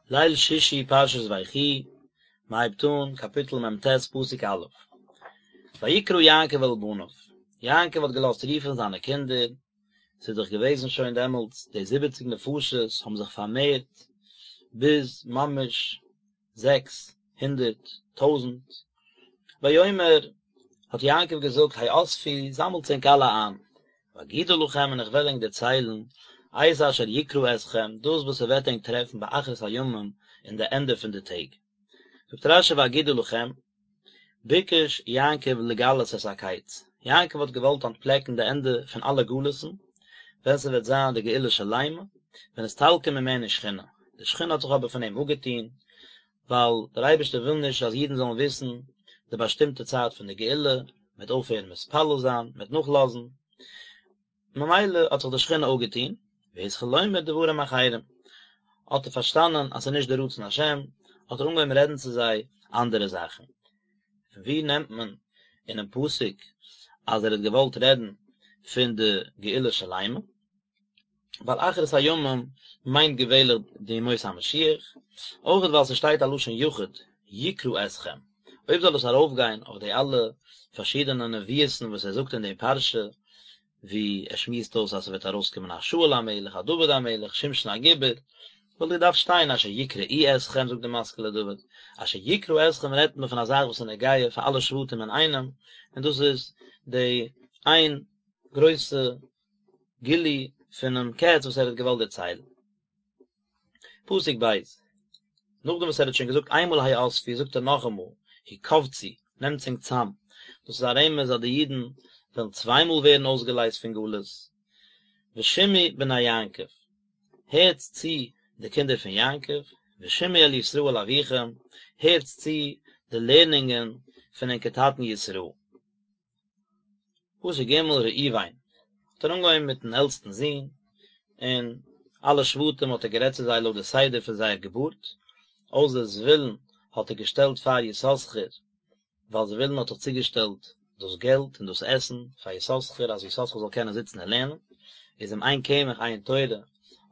ליל שישי פרשת ויחי, מען הייבט אן קאפיטל מ"ט פסוק א', ויקרא יעקב אל בניו, יעקב האט געלאזט רופן זיינע קינדער, ס'איז דאך געוועזן שוין דעמאלטס די זיבעציג נפשות האבן זיך פארמערט ביז ממש 600 טויזנט, ויאמר האט יעקב געזאגט האספו זאמלטס ענק אלע איין, ואגידה לכם און איך וועל ענק דערציילן את אשר יקרא אתכם דאס וואס ס'וועט ענק טרעפן באחרית הימים אין די ענדע פון די טעג. זאגט רש"י ואגידה לכם, ביקש יעקב לגלות את הקץ, יעקב האט געוואלט אנטפלעקן די ענדע פון אלע גלות'ן, ווען ס'וועט זיין די גאולה שלימה, ונסתלקה ממנו שכינה, די שכינה האט זיך אבער פון אים אפגעטון, ווייל דער אייבערשטער וויל נישט אז אידן זאלן וויסן די באשטימטע צייט פון די גאולה, מ'וועט אויפהערן מתפלל זיין, מ'וועט נאכלאזן, ממילא האט זיך די שכינה אפגעטון, והתחיל לומר דברים אחרים, האט ער פארשטאנען אז ס'איז נישט די רצון השם, האט ער אנגעהויבן רעדן צו זיי אנדערע זאכן. פון וואו נעמט מען אינעם פסוק אז ער האט געוואלט רעדן פון די גאולה שלימה? ווייל אחרית הימים מיינט געווענליך די ימות המשיח, אויך ווייל ס'שטייט א לשון יחיד, יקרא אתכם, אויב זאל עס ארויפגיין אויף די אלע פארשידענע נביאות'ן וואס ער זאגט אין די פרשה, ווי ער שמועסט אויס אז ס'וועט ארויסקומען א שאול המלך, א דוד המלך, שמשון הגיבור, וואלט געדארפט שטיין אשר יקראו אתכם זאגט די משכיל לדוד, אשר יקרא אתכם רעדט מען פון א זאך וואס איז נוגע פאר אלע שבטים אינאיינעם, און דאס איז די איין גרויסע גילוי פונעם קץ וואס ער האט געוואלט דערציילן. פסוק ב', נאכדעם וואס ער האט שוין געזאגט איינמאל האספו זאגט ער נאכאמאל הקבצו, נעמטס ענק צאם, דאס איז א רמז אז די אידן וועלן צוויי מאל ווערן אויסגעלייזט פון גלות, ושמעו בני יעקב, הערטס צו די קינדער פון יעקב, ושמעו אל ישראל אביכם, הערטס צו די לערנונגען פון ענקער טאטן ישראל. פסוק ג' ראובן האט ער אנגעהויבן מיטן עלטסטן זון, און אלע שבטים האט ער גערעדט צו זיי לויט די סדר פון זייער געבורט, אויסער זבולון האט ער געשטעלט פאר יששכר, ווייל זבולון האט דאך צוגעשטעלט דאס געלט און דאס עסן פאר יששכר אז יששכר זאל קענען זיצן און לערנען, איז אם אין קמח אין תורה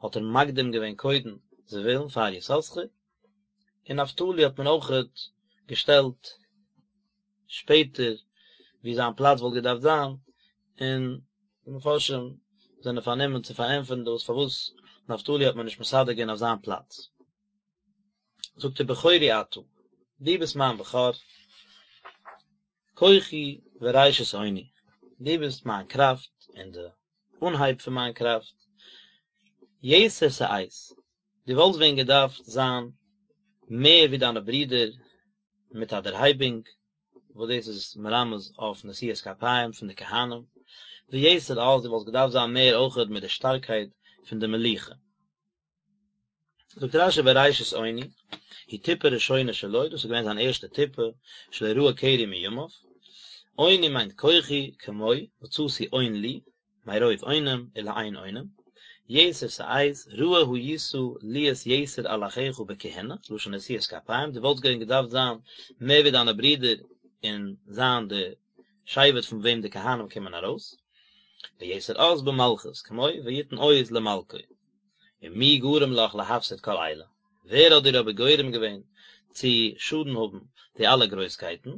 האט ער מקדים געווען קודם זבולון פאר יששכר, און נפתלי האט מען אויכעט געשטעלט שפעטער ווי זיין פלאץ וואלט געדארפט זיין, און די מפרשים זענען פארנומען צו פארענטפערן דאס פארוואס נפתלי האט מען נישט מסדר געווען אויף זיין פלאץ. זאגט ער בכורי אתה, דו ביסט מיין בכור, כוחי וראשית אוני, דו ביסט מיין קראפט און די אנהייב פון מיין קראפט, יתר שאת, דו וואלסט ווען געדארפט זיין מער ווי דיינע ברידער מיט א דערהייבונג, וואס דאס איז מרמז אויף נשיאת כפיים פון די כהנים, ויתר עז, דו וואלסט געדארפט זיין מער אויכעט מיט די שטארקייט פון די מלוכה. זאגט רש"י וראשית אוני, היא טיפה ראשונה שלו, דאס איז געווען זיין ערשטע טיפה, שלא ראה קרי מימיו, אוני מיינט כוחי, כמו, מצאתי און לי, מרוב אונים ולאין אונים, יתר שאת, ראוי היית להיות יתר על אחיך בכהונה, לשון נשיאת כפיים, דו וואלטסט געווען געדארפט זיין מער ווי דיינע ברידער און זיין די שבט פון וועם די כהנים קומען ארויס, ויתר עז במלכות, כמו ויתן עוז למלכו. ומי גרם לך להפסיד כל אלה, ווער האט דיר אבער גורם געווען צו שאדן האבן די אלע גרויסקייטן?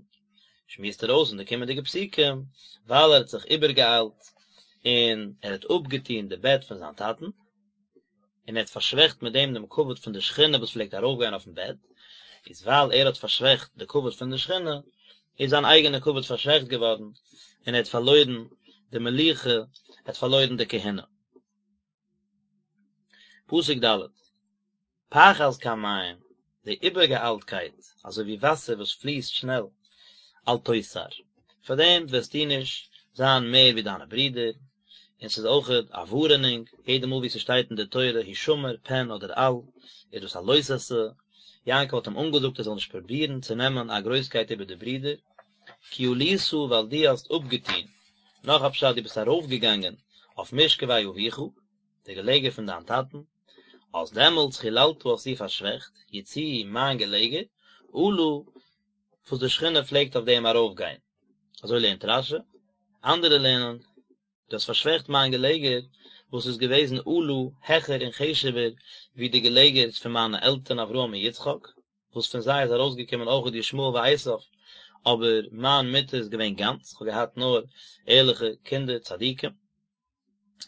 שמועסט ער אויס אין די קומענדיגע פסוקים, ווייל ער האט זיך איבערגעאיילט און ער האט אפגעטון די בעט פון זיין טאטן, און ער האט פארשוועכט מיט דעם דעם כבוד פון די שכינה וואס פלעגט ארויפגיין אויפן בעט, איז ווייל ער האט פארשוועכט די כבוד פון די שכינה, איז זיין אייגענע כבוד פארשוועכט געווארן, און ער האט פארלוירן די מלוכה, ער האט פארלוירן די כהונה. פסוק ד', פחז כמים, די איבערגעאיילטקייט, אזוי ווי וואסער וואס פליסט שנעל, אל תותר, פאר דעם וועסטו נישט זיין מער ווי דיינע ברידער, און ס'איז אויכעט א ווארענונג, יעדע מאל ווי ס'שטייט אין די תורה הישמר פן אדער אל, איז דאס א לא תעשה, יעקב האט אים אנגעזאגט ער זאל נישט פרובירן צו נעמען א גרויסקייט איבער די ברידער, כי עלית ווייל דו האסט אפגעטון, נאך א פשט דו ביסט ארויפגעגאנגען אויף משכבי אביך, די געלעגער פון דיין טאטן, אז דעמאלטס חללת האסטו פארשוועכט, יציעי מיין געלעגער, עלה וואס די שכינה פלעגט אויף דעם ארויפגיין. אזוי לערנט רש"י, אנדערע לערנען, דו האסט פארשוועכט מיין געלעגער, וואס איז געוועזן עלה העכער און חשוב'ער ווי די געלעגערס פון מיינע עלטערן אברהם און יצחק, וואס פון זיי איז ארויסגעקומען אויכעט ישמעאל ועשו, אבער מיין מיטה איז געווען גאנץ, כ'האב געהאט נאר ערליכע קינדער צדיקים.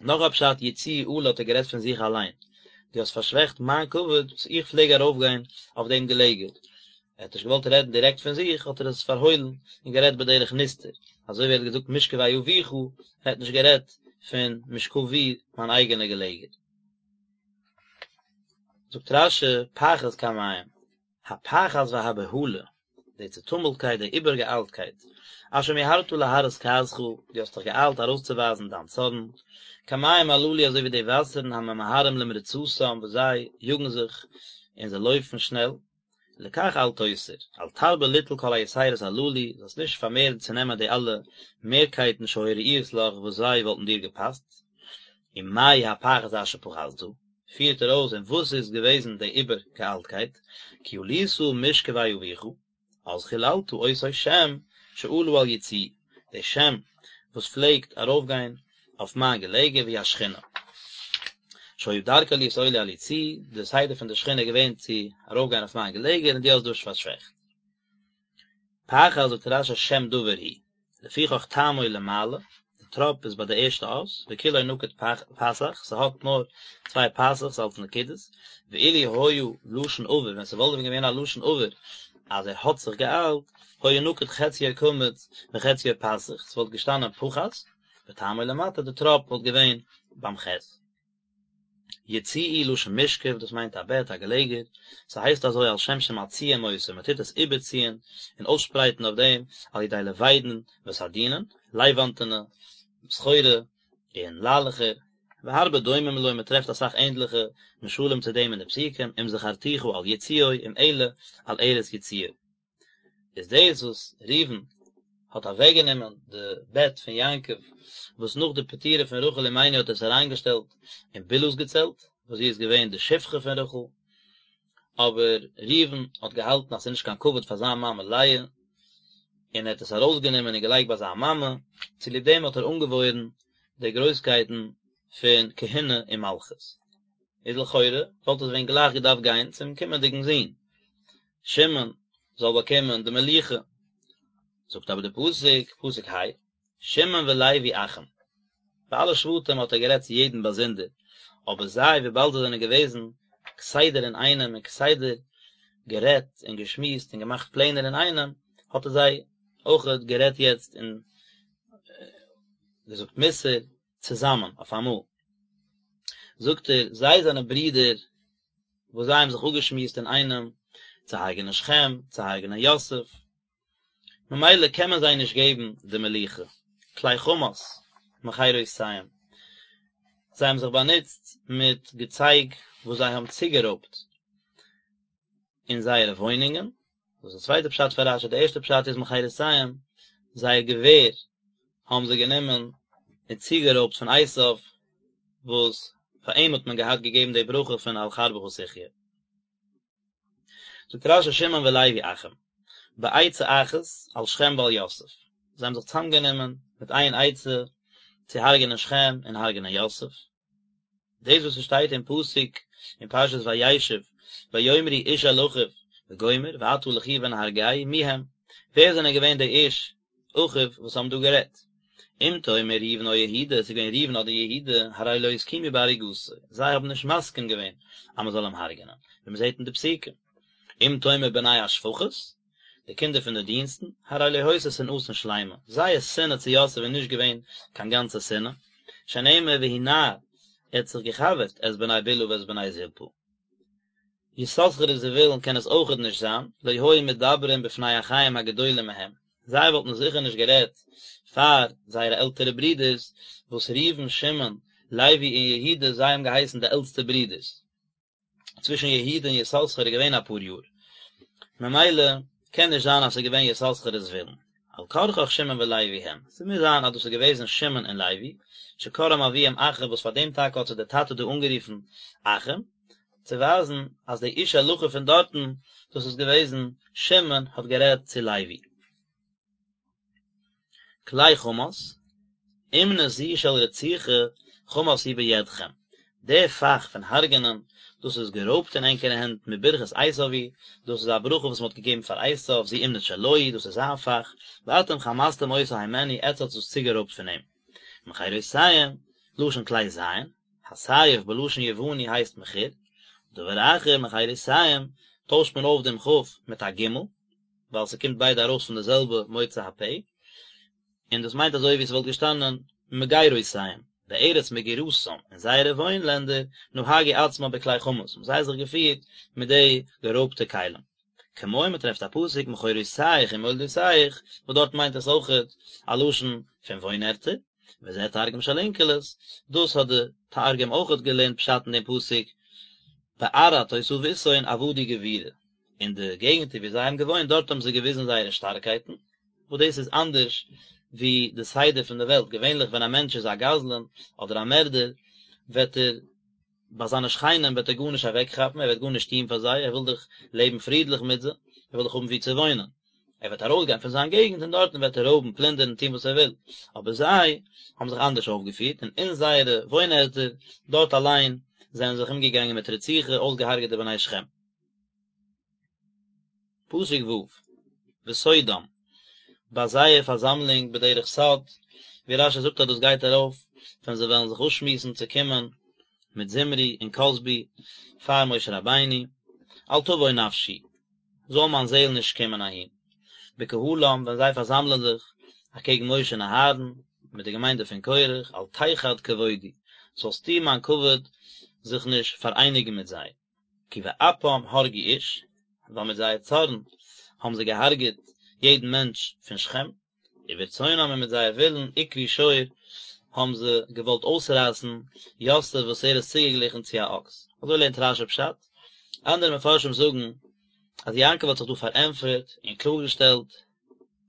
נאך א פשט יצועי עלה האט ער גערעדט פון זיך אליין, דו האסט פארשוועכט מיין כבוד וואס איך פלעג ארויפגיין אויף דעם געלעגער, ער האט נישט געוואלט רעדן דירעקט פון זיך האט ער עס פארהוילן און גערעדט בדרך נסתר, אזוי ווי ער האט געזאגט משכבי אביך, ער האט נישט גערעדט פון משכבי מיין אייגענע געלעגער. זאגט רש"י פחת כמים, הפחת והבהלה, די צעטומלטקייט, די איבערגעאיילטקייט, אשר מיהרת להראות כעסך, דו האסט דיך געאיילט ארויסצואווייזן דיין צארן, כמים הללו אזוי ווי די וואסערן הממהרים למרוצתם וואס זיי יאגן זיך און זיי לויפן שנעל, לכך אל תותר, אל תרבה ליטול כל היתירות הללו, זאלסט נישט פארמערן צו נעמען די אלע מערקייטן שהיו ראויות לך וואס זיי וואלטן דיר געפאסט. ומהו הפחת אשר פחתת, פירט ער אויס און וואס איז געוועזן די איבערגעאיילטקייט, כי עלית משכבי אביך, אז חיללת אותו שם שעלה על יצועי, די שם וואס פלעגט ארויפגיין אויף מיין געלעגער והיא השכינה. שהיה דרכה להיות עולה על יצועי, די סדר פון די שכינה איז געווען צו ארויפגיין אויף מיין געלעגער און דו האסט דאס פארשוועכט. פחת זאגט רש"י שם דבר הוא. לפיכך טעמו למעלה, די טראפ איז ביי די ערשטע אות, וכולו נקוד פתח, ס'האט נאר צוויי פתח'ס אלס נקודות, ואילו היה לשון עבר, ווען ס'וואלט ווען געווען א לשון עבר אז ער האט זיך געאיילט, היה נקוד חציו קמץ וחציו פתח, ס'וואלט געשטאנען פחת, וטעמו למטה, די טראפ וואלט געווען ביים חית. יצועי לשון משכב, דאס מיינט א בעט, א געלעגער, ס'הייסט אזוי על שם שמצעים אותו, מ'טוט עס איבערציען און אויסשפרייטן אויף דעם על ידי לבידין וסדינין, לייוואנטענע סחורה און ליילעכער, והרבה דומים לו, מ'טרעפט אסאך ענדליכע משלים צו דעם אין די פסוקים, אם זכרתיך על יצועי, אם אעלה על ערש יצועי. איז דאס וואס ראובן האט אוועקגענומען די בעט פון יעקב, וואס נאך די פטירה פון רחל אמנו האט ער עס אריינגעשטעלט אין בלהה'ס געצעלט, וואס זי איז געווען די שפחה פון רחל, אבער ראובן האט געהאלטן אז ס'איז נישט קיין כבוד פאר זיין מאמע לאה, און ער האט עס ארויסגענומען און געלייגט ביי זיין מאמע, צוליב דעם האט ער אנגעוואוירן די גרויסקייטן פון כהונה און מלכות. איז לכאורה וואלט עס ווען גלייך געדארפט גיין צום קומענדיגן זון, שמעון זאל באקומען די מלוכה, זאגט אבער די פסוק, פסוק ה, שמעון ולוי אחים, ביי אלע שבטים האט ער גערעדט צו יעדן באזונדער, אבער זיי וויבאלד זיי זענען געוועזן כסדר אינאיינעם און כסדר גערעדט און געשמועסט און געמאכט פלענער אינאיינעם, האט ער זיי אויכעט גערעדט יעצט און געזאגט מוסר צוזאמען אויף אמאל. זאגט ער, זיי זענען ברידער וואס זיי האבן זיך אפגעשמועסט אינאיינעם צו הרג'נען שכם, צו הרג'נען יוסף, ממילא קען מען זיי נישט געבן די מלוכה, כלי חמס מכרותיהם, זיי האבן זיך באנוצט מיט געצייג וואס זיי האבן צוגערויבט אין זייערע וואוינונגען, דאס איז די צווייטע פשט פון רש"י, די ערשטע פשט איז מכרותיהם, זייער געווער האבן זיי גענומען און צוגערויבט פון עשיו, וואס פאר אים האט מען געהאט געגעבן די ברכה פון על חרבך תחיה. זאגט רש"י שמעון ולוי אחים, בעצה אחת על שכם ועל יוסף, זיי האבן זיך צוזאמגענומען מיט איין עצה צו הרג'נען שכם און הרג'נען יוסף, דאס וואס עס שטייט אין פסוק אין פרשת וישב ויאמרו איש אל אחיו וגומר ועתה לכו ונהרגהו מי הם, ווער זענען געווען די איש אחיו וואס האבן דא גערעדט? אם תאמר ראובן או יהודה, עס איז געווען ראובן אדער יהודה, הרי לא הסכימו בהריגתו, זיי האבן נישט מסכים געווען אז מען זאל אים הרג'נען, ווי מען זעט אין די פסוקים. אם תאמר בני השפחות, די קינדער פון די דינסטן, הרי לא היתה שנאתן שלימה, זייער שנאה צו יוסף איז נישט געווען קיין גאנצע שנאה, שנאמר והוא נער, ער האט זיך געחבר'ט את בני בלהה ואת בני זלפה. יששכר וזבולון קען עס אויכעט נישט זיין, לא היו מדברים בפני אחיהם הגדולים מהם, זיי וואלטן זיכער נישט גערעדט פאר זייערע עלטערע ברידערס, וואס ראובן, שמעון, לוי און יהודה זיי האבן געהייסן די עלטסטע ברידערס. צווישן יהודה און יששכר איז געווען אפאר יאר, ממילא קען נישט זיין אז ס'איז געווען יששכר און זבולון, על כרחך שמעון ולוי הם, ס'מוז זיין אז דאס איז געוועזן שמעון און לוי, שקראם אביהם אחים וואס פאר דעם טאקע האט זיי דער טאטע דא אנגערופן אחים, צו ווייזן אז די איש אל אחיו פון דארטן, דאס איז געוועזן שמעון האט גערעדט צו לוי. כלי חמס, אומנות זו של רציחה. חמס הוא בידכם, די פאך פון הרג'נען, דאס איז גערויבט אין ענקערע הענט מברכת עשיו היא, דאס איז א ברכה וואס מען האט געגעבן פאר עשיו, זו אומנות שלו היא, דאס איז זיין פאך, ואתם חמסתם אותה הימנו, עטץ האטס דאס צוגערויבט פון אים. מכרותיהם, לשון כלי זין, הסייף בלשון יווני הייסט מחיר, דבר אחר מכרותיהם, טוישט מען אויף דעם כ' מיט א ג', ווייל ס'קומט ביידע ארויס פון די זעלבע מוצא הפה, און דאס מיינט אזוי ווי ס'וואלט געשטאנען מגרותיהם, בארץ מגורתם, אין זייערע וואוין לענדער, נהגו עצמם בכלי חמס, האבן זיי זיך געפירט מיט די גערויבטע כלים. כמו מ'טרעפט א פסוק מכורותיך ומולדותיך, וואס דארט מיינט עס אויכעט א לשון פון וואוין ערטער, וזה תרגום של אונקלוס, דאס האט די תרגום אויכעט געלערנט פשט אין דעם פסוק, בארעא תותבותהון עבדו גבורה, אין די געגנטער ווי זיי האבן געוואוינט דארט האבן זיי געוויזן זייערע שטארקייטן, וואס דאס איז אנדערש ווי די סדר פון די וועלט, געווענליך ווען א מענטש איז א גזלן אדער א מערדער וועט ער ביי זיינע שכנים וועט ער גארנישט אוועקכאפן, ער וועט גארנישט טון פאר זיי, ער וויל דאך לעבן פרידליך מיט זיי, ער וויל דאך האבן וואו צו וואוינען, ער וועט ארויסגיין פון זיין געגנט און דארטן וועט ער רויבן, פלינדערן, טון וואס ער וויל, אבער זיי האבן זיך אנדערש אויפגעפירט, און אין זייערע וואוינערטער דארט אליין זענען זיי זיך אומגעגאנגען מיט רציחה, אויסגעהארגעט די בני שכם. פסוק ו', בסודם, ביי זייער פארזאמלונג בדרך סוד, ווי רש"י זאגט אז דאס גייט ארויף ווען זיי וועלן זיך אפשמועסן צו קומען מיט זמרי און כזבי פאר משה רבינו, אל תבוא נפשי, זאל מיין זעהל נישט קומען אהין, בקהלם, ווען זיי פארזאמלען זיך אקעגן משה און אהרן, מיט די געמיינדע פון קורח, אל תחד כבודי, זאלסטו מיין כבוד זיך נישט פאראייניגן מיט זיי. כי באפם הרגו איש, ווייל מיט זייער צארן האבן זיי געהארגעט יעדן מענטש פון שכם, וברצונם און מיט זייער ווילן עקרו שור האבן זיי געוואלט אויסרייסן יוסף וואס ער איז צוגעגליכן צו א אקס. אזוי לערנט רש"י פשט. אנדערע מפרשים זאגן אז יעקב האט זיך דא פארענטפערט און קלארגעשטעלט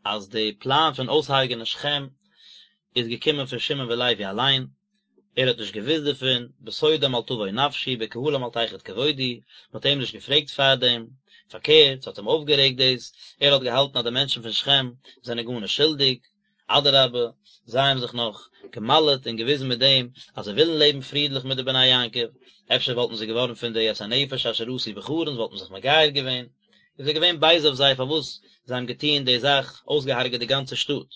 אז די פלאן פון אויסהרג'ענען שכם איז געקומען פון שמעון ולוי אליין, ער האט נישט געוואוסט דערפון, בסודם אל תבוא נפשי, בקהלם אל תחד כבודי, מען האט אים נישט געפרעגט פארדעם, פארקערט, ס'האט אים אויפגערעגט דאס, ער האט געהאלטן אז די מענטשן פון שכם זענען גארנישט שולדיג, אדרבה, זיי האבן זיך נאך גע'מל'ט און געוויזן מיט דעם אז זיי ווילן לעבן פרידליך מיט די בני יעקב, אפשר וואלטן זיי געווארן פון די את הנפש אשר עשו בחרן, וואלטן זיך מגייר געווען, איז ער געווען בייז אויף זיי פארוואס זיי האבן געטון די זאך, אויסגעהארגעט די גאנצע שטאט.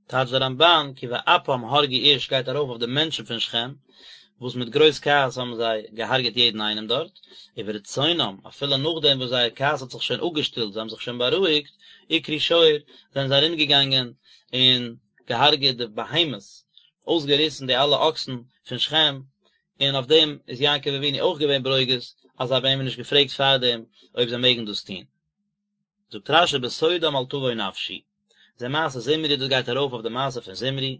טייטשט דער רמב"ן כי באפם הרגו איש גייט ארויף אויף די מענטשן פון שכם, וואס מיט גרויס כעס האבן זיי געהארגעט יעדן איינעם דארט, וברצונם, אפילו נאכדעם וואס זייער כעס האט זיך שוין אפגעשטילט, זיי האבן זיך שוין בארואיגט, עקרו שור, זענען זיי ארומגעגאנגען און געהארגעט די בהמות, אויסגעריסן די אלע אקסן פון שכם, און אויף דעם איז יעקב אבינו אויך געווען ברוגז, אז זיי האבן אים נישט געפרעגט פארדעם אויב זיי מעגן דאס טון. זאגט רש"י בסודם אל תבוא נפשי, זה מעשה זמרי דאס גייט ארויף אויף די מעשה פון זמרי,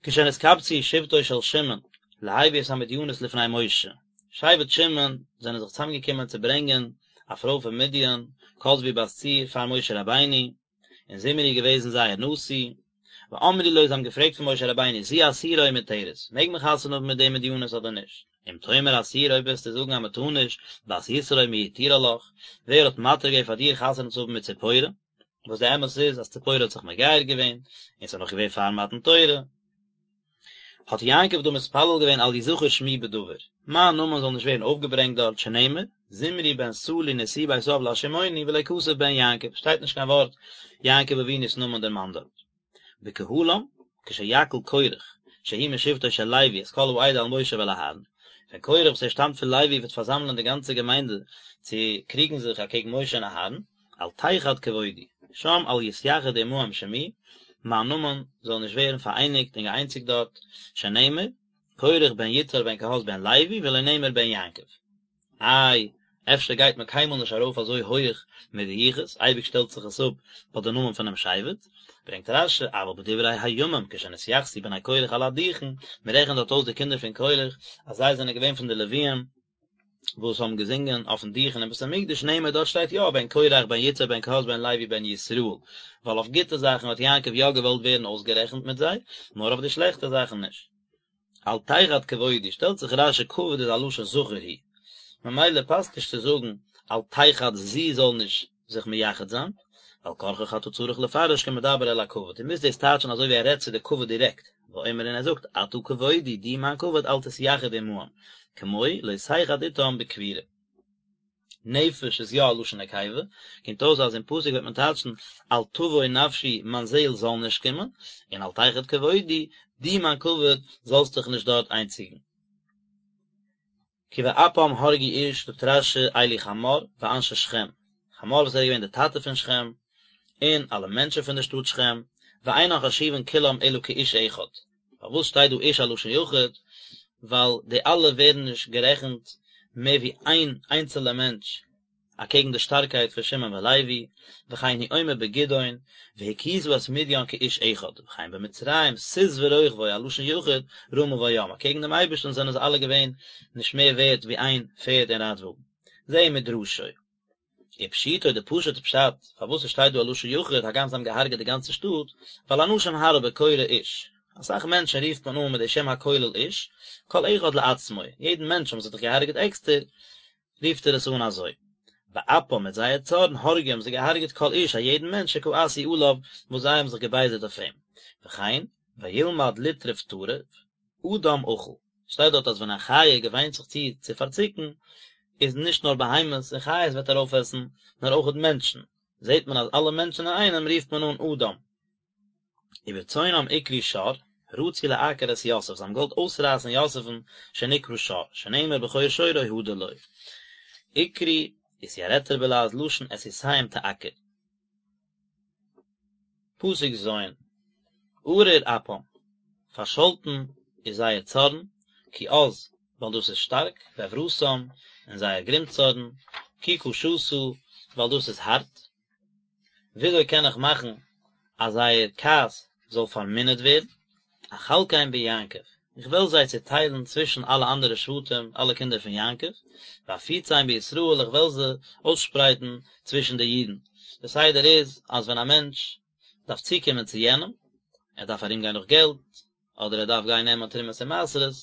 כשנתקבצו שבטו של שמעון להביא את המדינית לפני משה, שבט שמעון זענען זיך צוזאמגעקומען צו ברענגען א פרוי פון מדין, כזבי בת צור, פאר משה רבינו, און זמרי איז געוועזן זייער נשיא, ואמרו לו זיי האבן געפרעגט פון משה רבינו זו אסורה או מותרת, מעג מען חתונה האבן מיט די מדיינית אדער נישט? אם תאמר אסורה אויב וועסטו זאגן אז מען טאר נישט, בת יתרו מי התירה לך, ווער האט מתיר געווען פאר דיר חתונה צו האבן מיט ציפורה? וואס די אמת איז אז ציפורה האט זיך מגייר געווען, און ס'איז נאך געווען פאר מתן תורה. האט יעקב דא מתפלל געווען אל יזכר שמי בדבר, מיין נאמען זאל נישט ווערן אויפגעברענגט דארט, שנאמר, זמרי בן סלוא נשיא בית אב לשמעוני ולא כתב בן יעקב, שטייט נישט קיין ווארט יעקב אבינו'ס נאמען דערמאנט דארט. בקהלם, כשיקהיל קרח, שהוא משבטו של לוי את כל העדה אל משה ואל אהרן, ווען קרח וואס ער שטאמט פון לוי וועט פארזאמלען די גאנצע געמיינדע צו קריגן זיך אקעגן משה און אהרן, אל תחד כבודי, שם אל יתייחד עמהם שמי, מיין נאמען זאל נישט ווערן פאראייניגט און געאיינציגט דארט, שנאמר, קרח בן יצהר בן קהת בן לוי ולא נאמר בן יעקב. איי, אפשר גייט מען קיינמאל נישט ארויף אזוי הויעך מיט די יחוס, אייביג שטעלט זיך עס אפ ביי די נאמען פונעם שבט, ברענגט רש"י, אבל בדברי הימים כשנתייחסו בני קרח על הדוכן, מען רעכנט דארט אויס די קינדער פון קרח אז זיי זענען געווען פון די לוויים, וואס האבן געזינגען אויפן דוכן אין בית המקדש נאמר דארט שטייט יא בן קרח בן יצהר בן קהת בן לוי בן ישראל, ווייל אויף גוטע זאכן האט יעקב יא געוואלט ווערן אויסגערעכנט מיט זיי, נאר אויף די שלעכטע זאכן נישט. אל תחד כבודי, שטעלט זיך רש"י כבוד איז א לשון זכר הוא, ממילא פאסט נישט צו זאגן אל תחד זי זאל נישט זיך מייחד זיין, ועל כרחך אתה צריך לפרש כמדבר אל הכבוד, דו מוזט דאס טייטשן אזוי ווי ער רעדט צו די כבוד דירעקט, ואומר און ער זאגט, אתה כבודי, דו מיין כבוד אל תתייחד עמהם, כמו לא תחד אתם בקבורה. נפש איז יא א לשון נקיבה, קומט אויס אז אין פסוק וועט מען טייטשן אל תבוא נפשי מיין זעהל זאל נישט קומען, און אל תחד כבודי, דו מיין כבוד זאלסט דיך נישט דארט איינציגן. כי באפם הרגו איש, זאגט רש"י אלו חמור ואנשי שכם, חמור וואס ער איז געווען דער טאטע פון שכם, און אלע מענטשן פון דער שטאט שכם, ואינן חשובין כולם אלא כאיש אחד. פארוואס שטייט דא איש א לשון יחיד? ווייל די אלע ווערן נישט גערעכנט מער ווי איין איינצעלע מענטש אקעגן די שטארקייט פון שמעון ולוי, וכן הוא אומר בגדעון, והכית את מדיין כאיש אחד, וכן במצרים סוס ורוכבו א לשון יחיד, רמה בים, אקעגן דעם אייבערשטן זענען זיי אלע געווען נישט מער ווערט ווי איין פערד און רייטוואגן. זהו מדרשו. ופשיטו די פשוט'ע פשט פארוואס עס שטייט דא א לשון יחיד הגם זיי האבן געהארגעט די גאנצע שטאט, ווייל אנשים הרבה קורא איש, אסאך מענטשן רופט מען אן מיט די שם הכולל איש, כל אחד לעצמו, יעדן מענטש האבן זיי דאך געהארגעט עקסטער, רופט ער עס אן אזוי. באפם מיט זייער צארן הרגו האבן זיי געהארגעט כל איש א יעדן מענטש שכעסו עליו וואס זיי האבן זיך געבייזערט אויף אים. וכן, וילמד לטרוף טרף, אדם אכל. שטייט דארט אז ווען א חיה געוויינט זיך צו צו פארציקן, איז נישט נאר בהמות און חיות וועט ער אויפעסן, נאר אויכעט מענטשן. זעט מען אז אלע מענטשן אינאיינעם רופט מען אן אדם. וברצונם עקרו שור, רצו לעקור את יוסף, זיי האבן געוואלט אויסרייסן יוסף'ן, שנקרא שור, שנאמר בכור שורו הדר לו. עקרו, איתירטר בלע"ז לשון את סוסיהם תעקר. פסוק ז', ארור אפם, פארשאלטן איז זייער צארן, כי עז, ווייל דאס איז שטארק, ועברתם, און זייער גרימצארן, כי קשתה, ווייל דאס איז הארט. וויאזוי קען איך מאכן אז זייער כעס זאל פארמינערט ווערן? אחלקם ביעקב, איך וועל זיי צעטיילן צווישן אלע אנדערע שבטים, אלע קינדער פון יעקב, ואפיצם בישראל, איך וועל זיי אויסשפרייטן צווישן די אידן. דער סדר איז אז ווען א מענטש דארף צוקומען צו יענעם, ער דארף ארומגיין נאך געלט, אדער ער דארף גיין נעמען תרומות און מעשרות,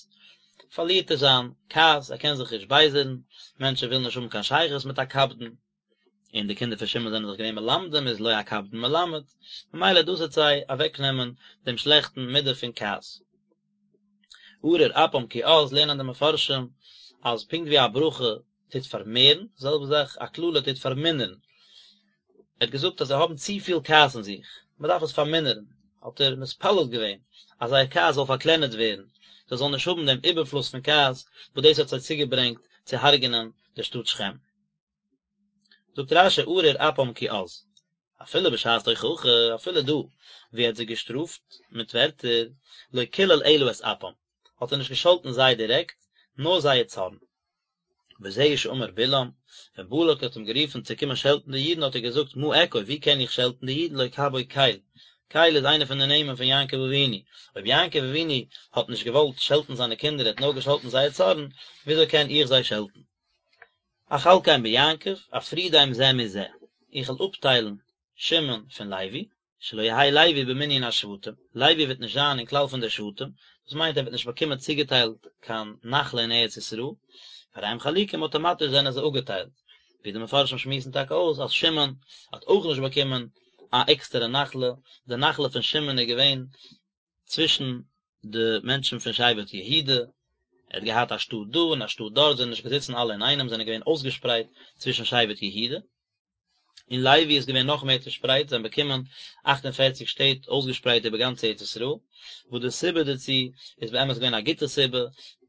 פארלירט ער זיין כעס, ער קען זיך נישט בייזערן, מענטשן ווילן נישט האבן קיין שייכות מיט א קפדן, און די קינדער פון שמעון זענען דאך געווען מלמדים איז לא הקפדן מלמד, ממילא דאס וועט זיי אוועק נעמען דעם שלעכטן מידה פון כעס. ארור אפם כי עז לערנען די מפרשים אז פונקט ווי א ברכה טוט פארמערן, די זעלבע זאך א קללה טוט פארמינערן. ער האט געזאגט אז זיי האבן צופיל כעס אין זיך, מען דארף עס פארמינערן, האט ער מתפלל געווען אז זייער כעס זאל פארקלענערט ווערן, זיי זאלן נישט האבן דעם איבערפלוס פון כעס וואס דאס האט זיי צוגעברענגט צו הרג'נען די שטאט שכם. זאגט רש"י ארור אפם כי עז, אפילו בשעת תוכחה, אפילו דא ווי ער האט זיי געשטראפט מיט ווערטער, לא קילל אלא את אפם, האט ער נישט געשאלטן זיי דירעקט, נאר זייער צארן. וזהו שאמר בלעם, ווען בלק האט אים גערופן צו קומען שעלטן די אידן האט ער געזאגט מה אקוב, ווי קען איך שעלטן די אידן לא קבה קל, קל איז איינער פון די נעמען פון יעקב אבינו, אויב יעקב אבינו האט נישט געוואלט שעלטן זיינע קינדער ער האט נאר געשאלטן זייער צארן, וויאזוי קען איך זיי שעלטן? אחלקם ביעקב, אפרידם זה מזה, איך וועל אפטיילן שמעון פון לוי, שלא יהא לוי במנין השבטים, לוי וועט נישט זיין אין כלל פון די שבטים, דאס מיינט ער וועט נישט באקומען צוגעטיילט קיין נחלה אין ארץ ישראל, והרי הם חלוקים אויטאמאטיש זענען זיי אפגעטיילט, ווי די מפרשים שמועסן טאקע אויס אז שמעון האט אויך נישט באקומען א עקסטערע נחלה, די נחלה פון שמעון איז געווען צווישן די מענטשן פון שבט יהודה, ער האט געהאט א שטאט דא און א שטאט דארט, זענען נישט געזיצן אלע אינאיינעם, זענען געווען אויסגעשפרייט צווישן שבט יהודה, און לוי איז געווען נאך מער צעשפרייט, זיי האבן באקומען אכט און פערציג שטעט אויסגעשפרייט איבער גאנץ ארץ ישראל, וואס די סיבה דערצו איז באמת געווען א גוטע סיבה,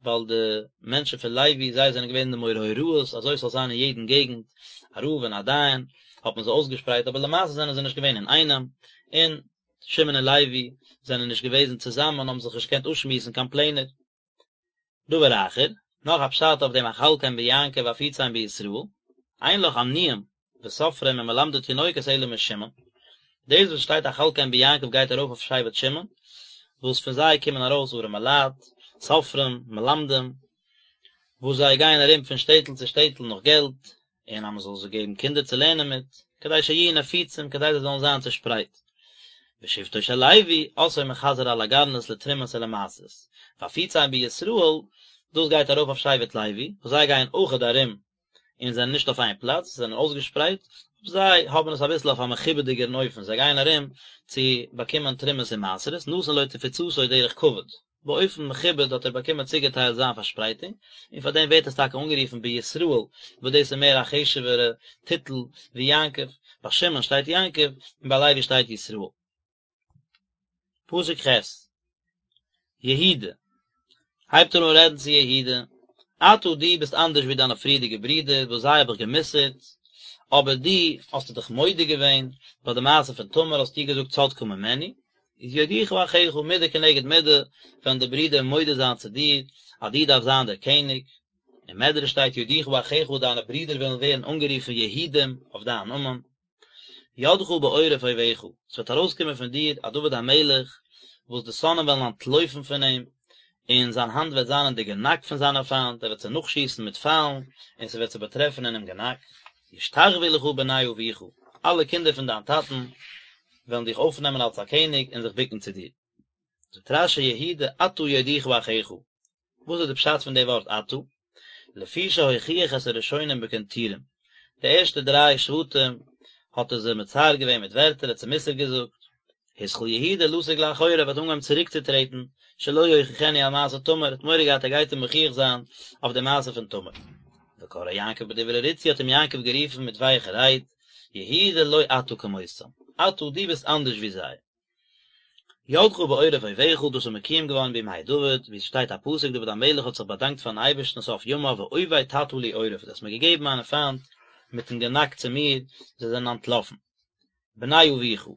ווייל די מענטשן פון לוי, זיי זענען געווען די מורי הוראות, אזוי ס'זאל זיין אין יעדן געגנט א רב און א דיין, האט מען זיי אויסגעשפרייט, אבער למעשה זענען זיי נישט געווען אינאיינעם, און שמעון און לוי זענען נישט געוועזן צוזאמען האבן זיך נישט געקענט אפשמועסן קיין פלענער. דבר אחר, נאך א פשט אויף דעם אחלקם ביעקב ואפיצם בישראל, אין לך עניים וסופרים ומלמדי תינוקות אלא משמעון, דאס וואס שטייט אחלקם ביעקב גייט ארויף אויף שבט שמעון, וואס פון זיי קומען ארויס ארעמע לייט, סופרים, מלמדים, וואס זיי גייען ארום פון שטעטל צו שטעטל נאך געלט, און אז מען זאל זיי געבן קינדער צו לערנען מיט, כדי שיהיו נפוצים, כדי זיי זאלן זיין צעשפרייט. ושבטו של לוי, עשאו מחזר על הגרנות לתרומות ולמעשרות. ואפיצם בישראל, דאס גייט ארויף אויף שבט לוי, וואס זיי גייען אויכעט ארום און זענען נישט אויף איין פלאץ, זיי זענען אויסגעשפרייט, זיי האבן עס אביסל אויף א מכובד'יגערן אופן, זיי גייען ארום צו באקומען תרומות און מעשרות, נתן לו תפוצתו דרך כבוד, באופן מכובד האט ער באקומען צוגעטיילט זיין פארשפרייטונג, און פאר דעם ווערט עס טאקע אנגערופן בישראל, וואס דאס איז מער א חשוב'ערע טיטל ווי יעקב, ביי שמעון שטייט יעקב, און ביי לוי שטייט ישראל. פסוק ח', יהודה, הייבט ער אן רעדן צו יהודה, אתה דו ביסט אנדערש ווי דיינע פריערדיגע ברידער וואס זיי האב איך גע'מוסר'ט, אבער דו האסטו דיך מודה געווען, ביי די מעשה פון תמר האסטו געזאגט צדקה ממני, איז יודוך אחיך מידה כנגד מידה, וועלן די ברידער מודה זיין צו דיר אז דו דארפסט זיין דער קעניג, אין מדרש שטייט יודוך אחיך דיינע ברידער וועלן ווערן אנגערופן יהודים אויף דיין נאמען. ידך בעורף אויביך, עס וועט ארויסקומען פון דיר א דוד המלך, וואס די שונאים וועלן אנטלויפן פון אים, און זיין האנט וועט זיין אין די גענאק פון זיינע פיינט, ער וועט זיי נאכשיסן מיט פיילן, און ס'וועט זיי באטרעפן אינעם גענאק. ישתחוו לך בני אביך, אלע קינדער פון דיין טאטן וועלן דיך אויפנעמען אלס א קעניג און זיך בוקן צו דיר. זאגט רש"י יהודה אתה יודוך אחיך, וואס איז די פשט פון די ווארט אתה? לפי שהוכיח את הראשונים בקנטורים, די ערשטע דריי שבטים האט ער זיי מצער געווען מיט ווערטער, ער האט זיי מוסר געזאגט, התחיל יהודה לסוג לאחוריו האט אנגעהויבן צוריקצוטרעטן, שלא יוכיחנו על מעשה תמר, ער האט מורא געהאט ער גייט אים מוכיח זיין אויף די מעשה פון תמר. וקראו יעקב בדברי רצוי האט אים יעקב גערופן מיט ווייכע רייד, יהודה לא אתה כמותם, אתה דו ביסט אנדערש ווי זיי. ידך בעורף אויביך, דאס איז מקוים געווארן בימי דוד, ווי עס שטייט א פסוק דוד המלך האט זיך באדאנקט פארן אייבערשטן סוף ימיו ואויבי תטה לי עורף, דו האסט מיר געגעבן מיינע פיינט מיטן גענאק צו מיר, זיי זענען אנטלאפן. בני אביך,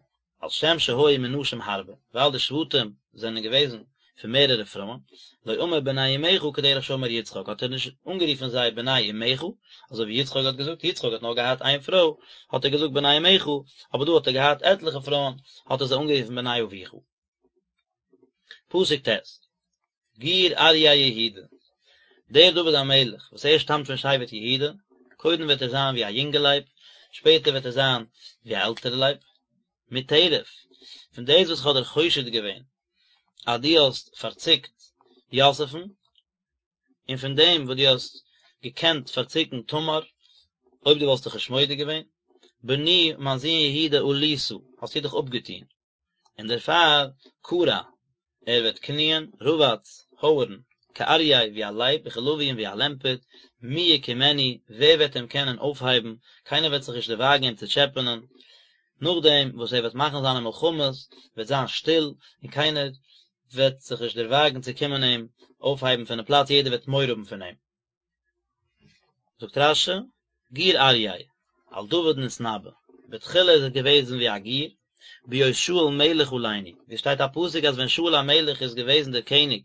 על שם שהיו מנשים הרבה, ווייל די שבטים זענען געוועזן פון מערערע פרויען, לא אמר בני אמך כדרך שאמר יצחק, האט ער נישט אנגערופן זיי בני אמך, אזוי ווי יצחק האט געזאגט, יצחק האט נאר געהאט איין פרוי, האט ער געזאגט בני אמך, אבער דא האט ער געהאט עטליכע פרויען, האט ער זיי אנגערופן בני אביך. פסוק ט', גור אריה יהודה, דער דוד המלך וואס ער שטאמט פון שבט יהודה, קודם וועט ער זיין ווי א יונגע לייב, שפעטער וועט ער זיין ווי א עלטערע לייב, מטרף, פון דאס וואס איך האב דיר חושד געווען אז דו האסט פארציקט יוסף'ן, און פון דעם וואס דו האסט געקענט פארציקן תמר, אויב דו וואלסט דיך נישט מודה געווען, בני, מיין זון יהודה, עלית, האסטו דיך אפגעטון. און דערפאר כרע, ער וועט קניען, רבץ, הויערן, כאריה, ווי א לייב, וכלביא און ווי א לעמפערט, מי יקימנו, ווער וועט אים קענען אויפהייבן, קיינער וועט זיך נישט דערוואגן אים צו טשעפענען, נאכדעם וואס ער וועט מאכן זיינע מלחמות, וועט זיין שטיל, און קיינער וועט זיך נישט דערוואגן צו קומען אים אויפהייבן פונעם פלאץ, יעדער וועט מורא האבן פון אים. זאגט רש"י, גור אריה, על דוד נתנבא, בתחילה איז ער געוועזן ווי א גור, בהיות שאול מלך עלינו, ווי עס שטייט א פסוק אז ווען שאול המלך איז געוועזן דער קעניג,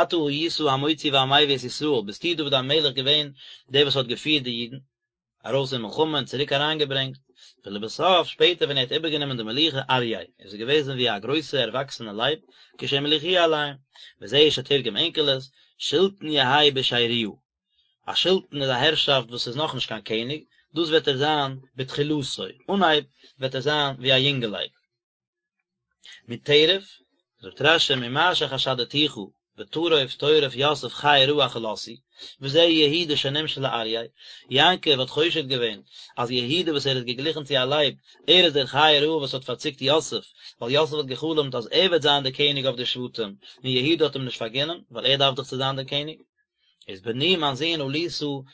אתה היית המוציא והמביא את ישראל, ביסטו דוד המלך געווען דער וואס האט געפירט די אידן ארויס אין מלחמה און צוריק אריינגעברענגט, ולבסוף שפעטער ווען ער האט איבערגענומען די מלוכה אריה, איז ער געוועזן ווי א גרויסע ערוואקסענע לייב, כשהמליכוהו עליהם, וזהו שתרגם אונקלוס, שלטון יהא בשריה, א שלטון איז א הערשאפט וואס איז נאכנישט קיין קעניג, דאס וועט ער זיין בתחילתו, אנהייב וועט ער זיין ווי א יונגע לייב. מטרף, זאגט רש"י ממה שחשדתיך בטרוף טורף יוסף חיה רעה אכלתהו, וזה יהודה שנמשל לאריה, יעקב האט חושד געווען אז יהודה וואס ער איז געגליכן צו א לייב, ער איז דער חיה רעה וואס האט פארציקט יוסף, ווייל יוסף האט גע'חלומ'ט אז ער וועט זיין דער קעניג אויף די שבטים, און יהודה האט אים נישט פארגינען, ווייל ער דארף דאך צו זיין דער קעניג. איז בני מיין זון עלית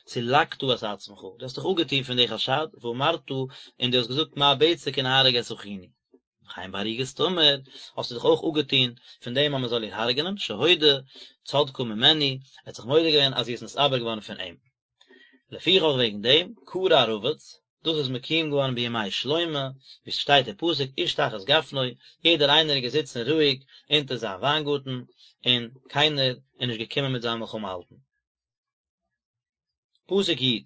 סלקת את עצמך, דו האסט דיך אפגעטון פון די חשד, ואמרת, און דו האסט געזאגט מה בצע כי נהרוג את אחינו. וכן בהריגת תמר, האסטו דיך אויך אפגעטון פון דעם אז מען זאל איר הרג'נען, שהודה צדקה ממנו, ער האט זיך מודה געווען אז זי איז נתעבר געווארן פון אים. לפיכך וועגן דעם, כרע רבץ, דאס איז מקוים געווארן בימי שלמה, ווי ס'שטייט אין פסוק איש תחת גפנו, יעדער איינער איז געזיצן רואיג אונטער זיין וויינגארטן, און קיינער איז נישט געקומען מיט זיי מלחמה האלטן. פסוק י',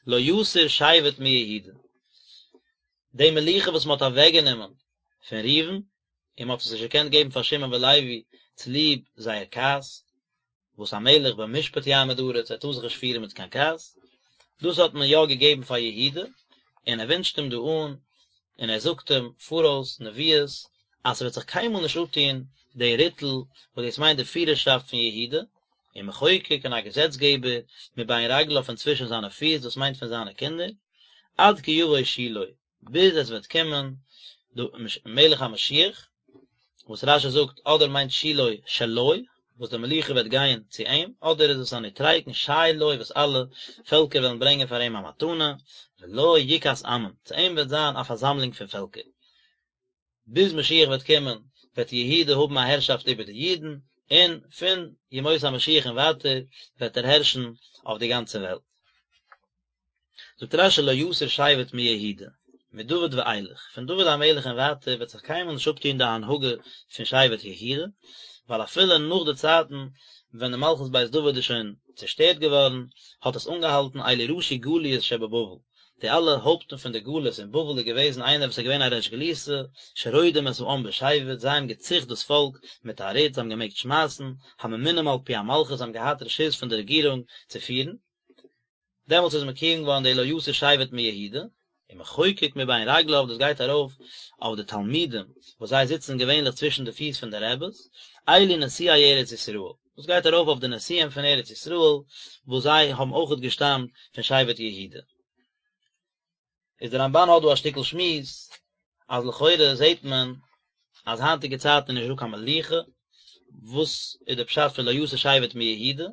לא יסור שבט מיהודה, די מלוכה וואס מען האט אוועקגענומען פון ראובן, און מען האט עס נישט געקענט געבן פאר שמעון ולוי צוליב זייער כעס, וואס המלך במשפט יעמיד ארץ, ער טאר זיך נישט פירן מיט קיין כעס, דאס האט מען יא געגעבן פאר יהודה, און ער ווינטשט אים דא אן, און ער זאגט אים פאראויס נביאות, אז ס'וועט זיך קיינמאל נישט אפטון די ריטל, וואס דאס מיינט די פירערשאפט פון יהודה, ומחוקק און א געזעצגעבער, מבין רגליו פון צווישן זיינע פיס, דאס מיינט פון זיינע קינדער. עד כי יבוא שילה, ביז עס וועט קומען די מלך המשיח, וואס רשי זאגט אדער מיינט שילה שלו, וואס די מלוכה וועט גיין צו אים, אדער איז עס א נוטריקון שי לו וואס אלע פעלקער וועלן ברענגען פאר אים א מתנה, ולו יקהת עמים, צו אים וועט זיין א פארזאמלונג פון פעלקער. ביז משיח וועט קומען וועט יהודה האבן א הערשאפט איבער די אידן, און פון ימות המשיח און ווייטער וועט ער הערשן אויף די גאנצע וועלט. זאגט רשי לא יסור שבט מיהודה, מדוד ואילך, פון דוד המלך און ווייטער וועט זיך קיינמאל נישט אפטון די הנהגה פון שבט יהודה, ווייל אפילו נאך די צייטן ווען די מלכות בית דוד איז שוין צעשטערט געווארן, האט עס אנגעהאלטן אלו ראשי גליות שבבבל, די אלע הויפטן פון די גלות אין בבל איז געוועזן איינער וואס איז געווען א ריש גלותא, שרודים את העם בשבט, זיי האבן געציכט דאס פאלק מיט א רוט, זיי האבן געמעגט שמייסן, הממונים על פי המלכות, זיי האבן געהאט רשות פון די רעגירונג צו פירן. דעמאלטס איז מקוים געווארן די לא יסור שבט מיהודה, ומחוקק מבין רגליו, דאס גייט ארויף אויף די תלמידים וואס זיי זיצן געווענליך צווישן די פיס פון די רעבעס, אלו נשיאי ארץ ישראל, דאס גייט ארויף אויף די נשיאים פון ארץ ישראל וואס זיי האבן אויכעט געשטאמט פון שבט יהודה. איז דער רמבן האט דא א שטיקל שמועס אז לכאורה זעט מען אז היינטיגע צייטן איז נישט דא קיין מלוכה, וואס איז די פשט פון לא יסור שבט מיהודה?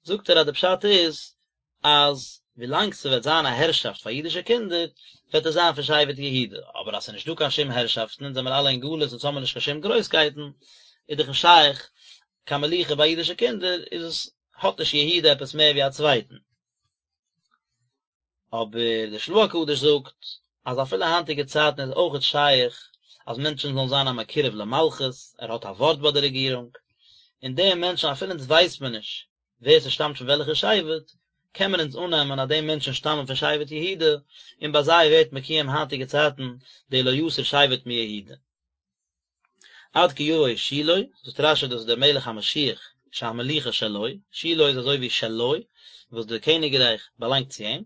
זאגט ער אז די פשט איז אז ווילאנג ס'וועט זיין א הערשאפט פאר אידישע קינדער וועט עס זיין פון שבט יהודה, אבער אז ס'איז נישט דא קיין שום הערשאפטן אונז זעמיר אלע אין גלות אונז האמיר נישט קיין שום גרויסקייטן איז דאך נישט שייך קיין מלוכה ביי אידישע קינדער איז עס האט נישט יהודה עפעס מער ווי א צווייטן. אבער דער של"ה הקדוש זאגט אז אפילו היינטיגע צייטן איז אויכעט שייך אז מענטשן זאלן זיין א מקורב למלכות, ער האט א ווארט ביי די רעגירונג, און די מענטשן אפילו אונז ווייסט מען נישט ווער ס'שטאמט פון וועלכע שבט, קען מען אונז אננעמען אז די מענטשן שטאמען פון שבט יהודה, און ביי זיי ווערט מקוים היינטיגע צייטן די לא יסור שבט מיהודה. עד כי יבוא שילה, זאגט רשי דאס איז דער מלך המשיח שהמלוכה שלו, שילה איז אזוי ווי שלו, וואס די קעניגרייך באלאנגט צו אים,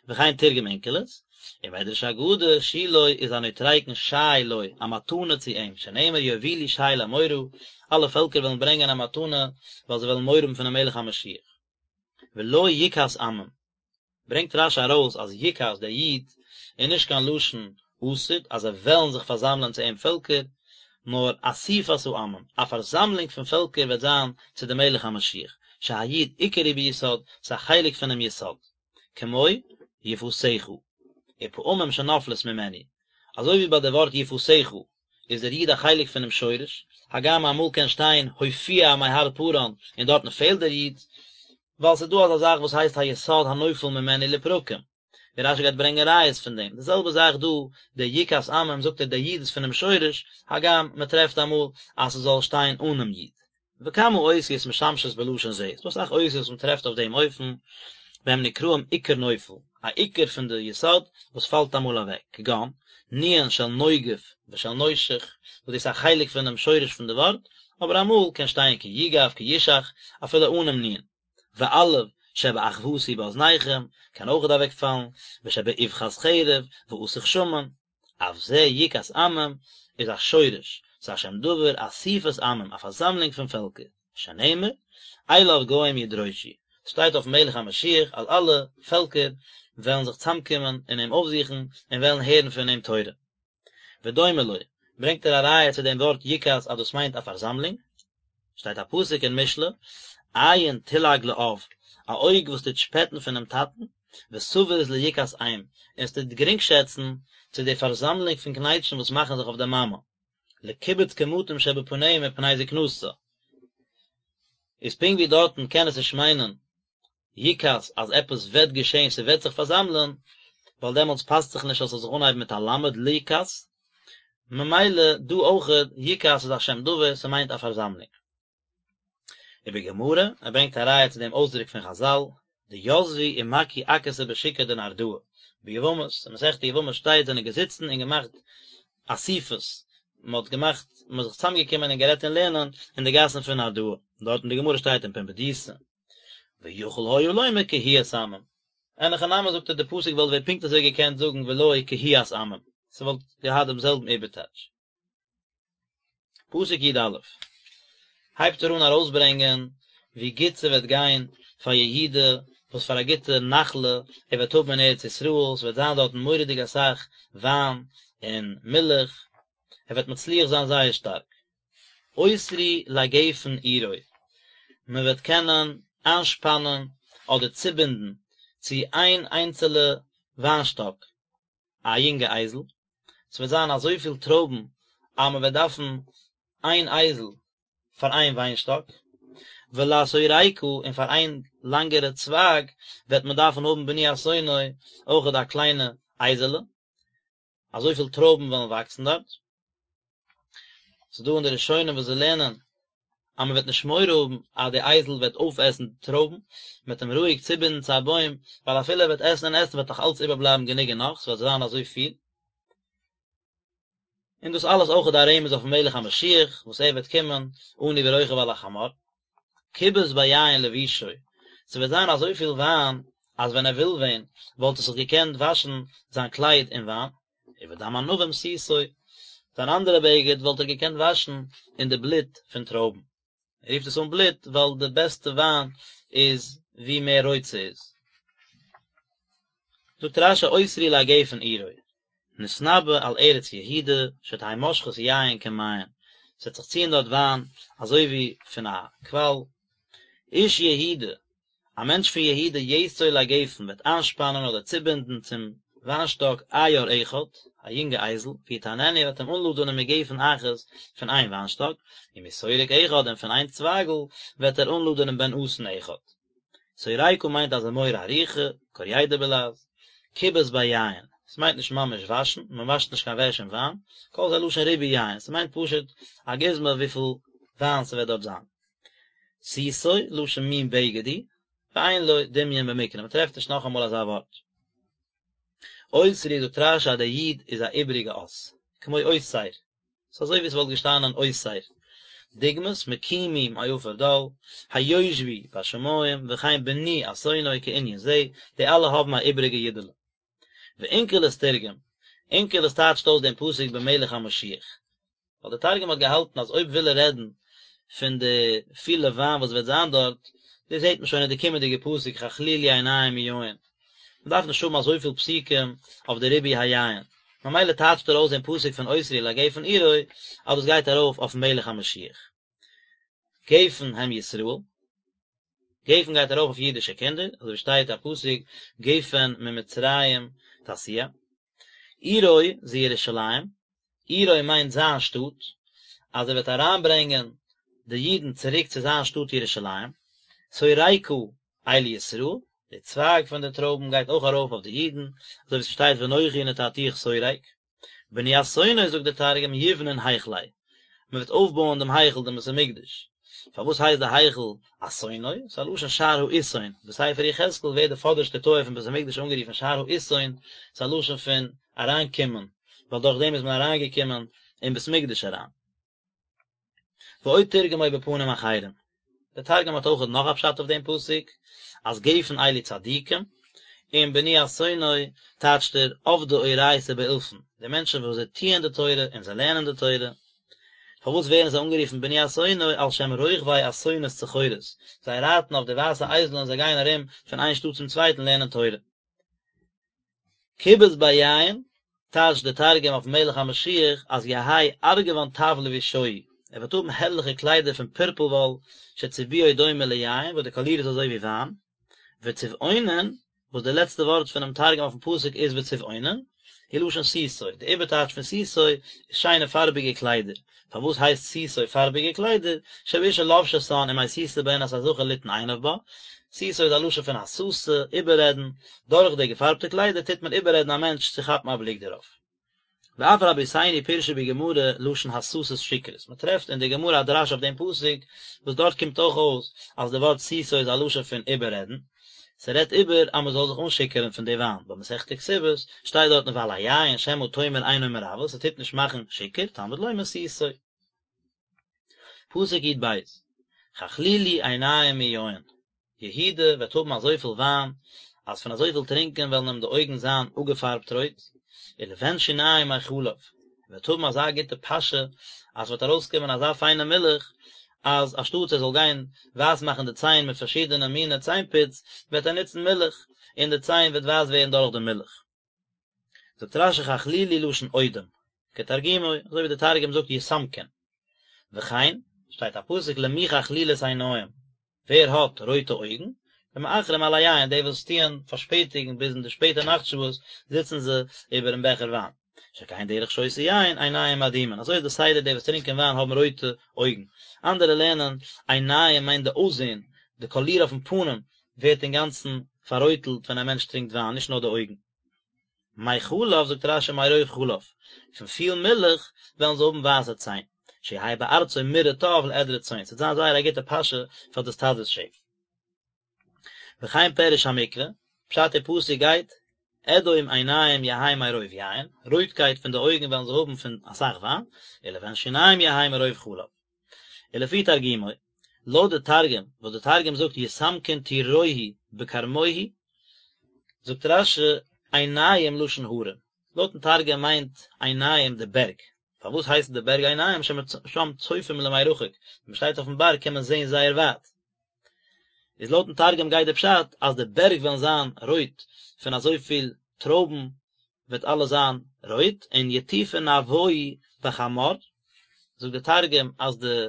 וכן תרגם אונקלוס, ומדרש אגדה, שילה איז א נוטריקון שי לו, א מתנה צו אים, שנאמר יובילו שי למורא, אלע פעלקער וועלן ברענגען א מתנה, ווייל זיי וועלן מורא האבן פונעם מלך המשיח. ולו יקהת עמים. ברענגט רשי ארויס אז יקהת דער יוד איז נישט קיין לשון עתיד אז זיי וועלן זיך פארזאמלען צו אים פעלקער, נאר אסיפת העמים, א פארזאמלונג פון פעלקער וועט זיין צו דעם מלך המשיח, שהיוד עיקר היא ביסוד, ס'איז א חלק פונעם יסוד, כמו יפתך, ופעמים שנופלת ממנו, אזוי ווי ביי די ווארט יפתך איז דער יוד א חלק פונעם שורש, הגם אמאל קען שטיין הופיע מהר פארן און דארטן פעלט דער יוד, ווייל ס'איז דא אזא זאך וואס הייסט היסוד הנופל ממנו לפרקים, ווי רשי גייט ברענגען ראיות פון דעם, די זעלבע זאך דא, דער יקהת עמים זאגט ער דער יוד איז פונעם שורש, הגם מען טרעפט אמאל אז ס'זאל שטיין אנעם יוד. וכמה אותיות משמשות בלשון זה, ס'דא אסאך אותיות וואס מען טרעפט אויף דעם אופן, והם נקראים עיקר נופל, א עיקר פון די יסוד וואס פאלט אמאל אוועק, כגון, נו"ן של נוגף ושל נושך, וואס דאס איז א חלק פונעם שורש פון די ווארט, אבער אמאל קען שטיין כי יגף כי ישך אפילו אנעם נו"ן. ואלף שבאחוותי באזניכם קען אויכעט אוועקפאלן, ושבאבחת חרב ואסוך שמן, אף זה יקהת עמים איז א שורש, ס'איז א שם דבר, אסיפת עמים, א פארזאמלונג פון פעלקער, שנאמר, אליו גוים ידרשו, ס'שטייט אויפן מלך המשיח אז אלע פעלקער וועלן זיך צאמקומען און אים אויפזוכן און וועלן הערן פון אים תורה. ודומה לו, ברענגט ער א ראיה צו דעם ווארט יקהת אז דאס מיינט א פארזאמלונג, שטייט א פסוק אין משלי, עין תלעג לאב, א אויג וואס טוט שפעטן פונעם טאטן, ותבוז ליקהת אם, און עס טוט גרינגשעצן צו די פארזאמלונג פון קנייטשן וואס מאכן זיך אויף די מאמע, לקיבוץ קמטים שבפניה מפני זקנתה. איז פונקט ווי דארטן קען עס נישט מיינען יקהת אז עפעס וועט געשען ס'וועט זיך פארזאמלען, ווייל דעמאלטס פאסט זיך נישט אז ס'זאל זיך אנהייבן מיט א למד ליקהת, ממילא דא אויכעט יקהת איז א שם דבר ס'מיינט א פארזאמלונג. ובגמרא, ער ברענגט א ראיה צו דעם אויסדרוק פון חזל, דיתבי ומקהו עכתא בשוקא דנהרדעא, ביבמות, אין מסכת יבמות שטייט זענען געזיצן און געמאכט אסיפות, מען האט געמאכט, מען איז זיך צוזאמגעקומען און גערעדט אין לערנען אין די גאסן פון נהרדעא, דארט אין די גמרא שטייט אין פומבדיתא. ויכול היה לומר קהיית עמים. אין הכי נמי זאגט ער די פסוק וואלט ווען פונקט אזוי געקענט זאגן ולו קהיית עמים, ס'וואלט געהאט דעם זעלבן איבערטייטש. פסוק י"א הייבט ער אן ארויסברענגען ווי גוט ס'וועט גיין פאר יהודה. וואס פאר א גוטע נחלה ער וועט האבן אין ארץ ישראל, ס'וועט זיין דארטן מורא'דיג אסאך וויין און מילך, ער וועט מצליח זיין זייער שטארק. אוסרו לגפן עירו, מען וועט קענען איינשפאנען אדער צובינדן צו איין איינצעלע וויינשטאק א יונגע אייזל, ס'וועט זיין אזויפיל טרויבן אז מען וועט דארפן איין אייזל פאר איין וויינשטאק, ולשורקה און פאר איין לאנגערע צווייג וועט מען דארפן האבן בני אתונו אויכעט א קליינע אייזעלע. אזויפיל טרויבן וועלן וואקסן דארט. ס'איז דא אין די ראשונים וואס זיי לערנען אז מען וועט נישט מורא האבן אז די אייזל וועט אויפעסן די טרויבן, מען וועט אים רואיג צובינדן צו א בוים, ווייל אפילו ער וועט עסן און עסן וועט נאך אלץ איבערבלייבן גענוג און נאך, ס'וועט זיין אזוי פיל. און דאס אלעס אויך איז א רמז אויפן מלך המשיח וואס ער וועט קומען עני ורוכב על החמור. כבס ביין לבושו, ס'וועט זיין אזויפיל וויין אז ווען ער וויל ווען וואלט ער זיך געקענט וואשן זיין קלייד אין וויין, ובדם ענבים סותו, זיין אנדערע בגד וואלט ער געקענט וואשן אין די בלוט פון טרויבן. ער רופט עס אן בלוט ווייל די בעסטע וויין איז ווי מער רויט ס'איז. זאגט רש"י אוסרו לגפן עירו, נתנבא על ארץ יהודה שתהא מושכת יין כמעיין, ס'וועט זיך ציען דארט וויין אזוי ווי פון א קוואל. איש יהודה, א מענטש פון יהודה יאסור לגפן וועט איינשפאנען אדער צובינדן צום וויינשטאק עיר אחד, א יונגע אייזל, ויטעננו וועט אים אנלאדענען מגפן אחת פון איין וויינשטאק, ומשורק אחד און פון איין צווייגל וועט ער אנלאדענען בן אתון אחד. שורקה מיינט א זמורה ארוכה, קוריידא בלע"ז, כבס ביין, ס'מיינט נישט ממש וואשן, מען וואשט נישט קיין וועש אין וויין, כל זה לשון ריבוי יין, ס'מיינט פשוט א גוזמא וויפיל וויין ס'וועט דארט זיין. סותו, לשון מין בגד הוא, ואין לו דמיון במקרא, מען טרעפט נישט נאכאמאל אזא ווארט. אוסרו זאגט רש"י אז דער יו"ד איז א איבעריגע אות, כמו אוסר, ס'איז אזוי ווי ס'וואלט געשטאנען אוסר. דוגמת מקימי מעפר דל, היושבי בשמים, וכן בני אתונו כענין זה, די אלע האבן א איבעריגע יודעלע. ואונקלוס תרגם, אונקלוס טייטשט אויס דעם פסוק במלך המשיח. ווייל דער תרגום האט געהאלטן אז אויב וויל ער רעדן פון די פילע וויין וואס וועט זיין דארט, דאס זעט מען שוין אין די קומענדיגע פסוק חכלילי עיניים מיין. מען דארף נישט האבן אזויפיל פסוקים אויף די ריבוי היין. ממילא טייטשט ער אויס דעם פסוק פון אוסרו לגפן עירו אז דאס גייט ארויף אויפן מלך המשיח. גפן הם ישראל. גפן גייט ארויף אויף אידישע קינדער, אזוי ווי שטייט א פסוק גפן ממצרים תסיע. עירו זו ירושלים, עירו מיינט זיין שטאט, אז ער וועט אריינברענגען די אידן צוריק צו זיין שטאט ירושלים. שורקה אלו ישראל, די צווייג פון די טרויבן גייט אויך ארויף אויף די אידן, אזוי ווי ס'שטייט ואנכי נטעתיך שורק. בני אתונו זאגט דער תרגום יבנון היכליה, מען וועט אויפבויען דעם היכל דעם בית המקדש, פארוואס הייסט די היכל אתונו? ס'איז א לשון שער האתון, בספר יחזקאל ווערט די פאדערשטע טויער פון בית המקדש אנגערופן שער האתון, ס'איז א לשון פון אריינקומען, ווייל דורך דעם איז מען אריינגעקומען אין בית המקדש אריין. ועוד תרגמו בפנים אחרים, דער תרגום האט אויך נאך א פשט אויף דעם פסוק, אז גפן אלו צדיקים, און בני אתונו טייטשט ער עבדי אורייתא באולפן, די מענטשן וואס זיי טוען די תורה און זיי לערנען די תורה, פארוואס ווערן זיי אנגערופן בני אתונו על שם רוכבי אתונות צחורות, זיי רייטן אויף די ווייסע אייזלען און זיי גייען ארום פון איין שטאט צום צווייטן לערנען תורה. כבס ביין, טייטשט דער תרגום אויפן מלך המשיח אז יהא ארגוון טב לבושוהי, ער וועט האבן הערליכע קליידער פון פורפל וואל שצבועו דומה ליין וואס די קאליר איז אזוי ווי וויין, וצבעונין, וואס די לעצטע ווארט פונעם תרגום אויפן פסוק איז וצבעונין, הוא לשון סותו, די איבערטייטש פון סותו איז שיינע פארביגע קליידער, פארוואס הייסט סותו פארביגע קליידער, שבאשה לובשתן ומסיתה בהן את הזכר ליתן עיניו בה, סותו איז א לשון פון הסתה, איבעררעדן, דורך די געפארבטע קליידער טוט מען איבעררעדן א מענטש צו כאפן א בליק דערויף. ואף רבותינו פירשו בגמרא לשון הסתת שכרות, מען טרעפט אין די גמרא א דרש אויף דעם פסוק, וואס דארט קומט אויך אויס אז די ווארט סותו איז א לשון פון איבעררעדן, ס'רעדט איבער אז מען זאל זיך אנשיכור'ן פון די וויין, במסכת כתובות שטייט דארטן ועל היין שמא תאמר אינו מרוה, ס'טוט נישט מאכן שיכור, תלמוד לומר סותו. פסוק י"ב, חכלילי עיניים מיין, יהודה וועט האבן אזויפיל וויין, אז פון אזויפיל טרינקען וועלן אים די אויגן זיין אפגעפארבט רויט, ולבן שיניים מחלב, ער וועט האבן אזא גוטע פאשע, אז ס'וועט ארויסקומען אזא פיינע מילך, אז אנשטאטס ער זאל גיין ווייס מאכן די ציין מיט פארשידענע מיני ציין פוץ, וועט ער נוצן מילך, און די ציין וועט ווייס ווערן דורך די מילך. זאגט רש"י חכלילי לשון אודם, כתרגומו, אזוי ווי די תרגום זאגט יסמקון. וכן, שטייט א פסוק למי חכלילות עיניים, ווער האט רויטע אויגן? למאחרים על היין, די וואס טוען פארשפעטיגן ביז אין די שפעטע נאכט שעות זיצן זיי איבערן בעכער וויין. שכן דרך שותי יין, עיניים אדומין, אזוי איז די סדר די וואס טרינקען וויין האבן רויטע אויגן. אנדערע לערנען, עיניים מיינט די אויסזען, די קאליר אויפן פנים ווערט אינגאנצן פאררויטלט ווען א מענטש טרינקט וויין, נישט נאר די אויגן. מחלב, זאגט רש"י מרוב חלב, פון פיל מילך וועלן זיי האבן ווייסע ציין, שיהא בארצו מרעה טוב לעדרי צאן, ס'וועט זיין זייער א גוטע פאשע פאר די סטאדעס שעף. וכן פירוש המקרא, פשט אין פסוק גייט, אדום עיניים יהא מרוב יין, רויטקייט פון די אויגן וועלן זיי האבן פון אסאך וויין, ולבן שיניים יהא מרוב חלב. ולפי תרגומו, לויט די תרגום, וואס די תרגום זאגט יסמקון טורוהי בכרמוהי, זאגט רש"י עיניים לשון הרים, לויטן תרגום מיינט עיניים די בערג, פארוואס הייסן די בערג עיניים ששם צופים למרחק, ווען מען שטייט אויפן בארג קען מען זען זייער ווייט, איז לויטן תרגום גייט די פשט אז די בערג וועלן זיין רויט פון אזויפיל טרויבן וועט אלעס זיין רויט, און יטופון נהוואי בחמר, זאגט די תרגום אז די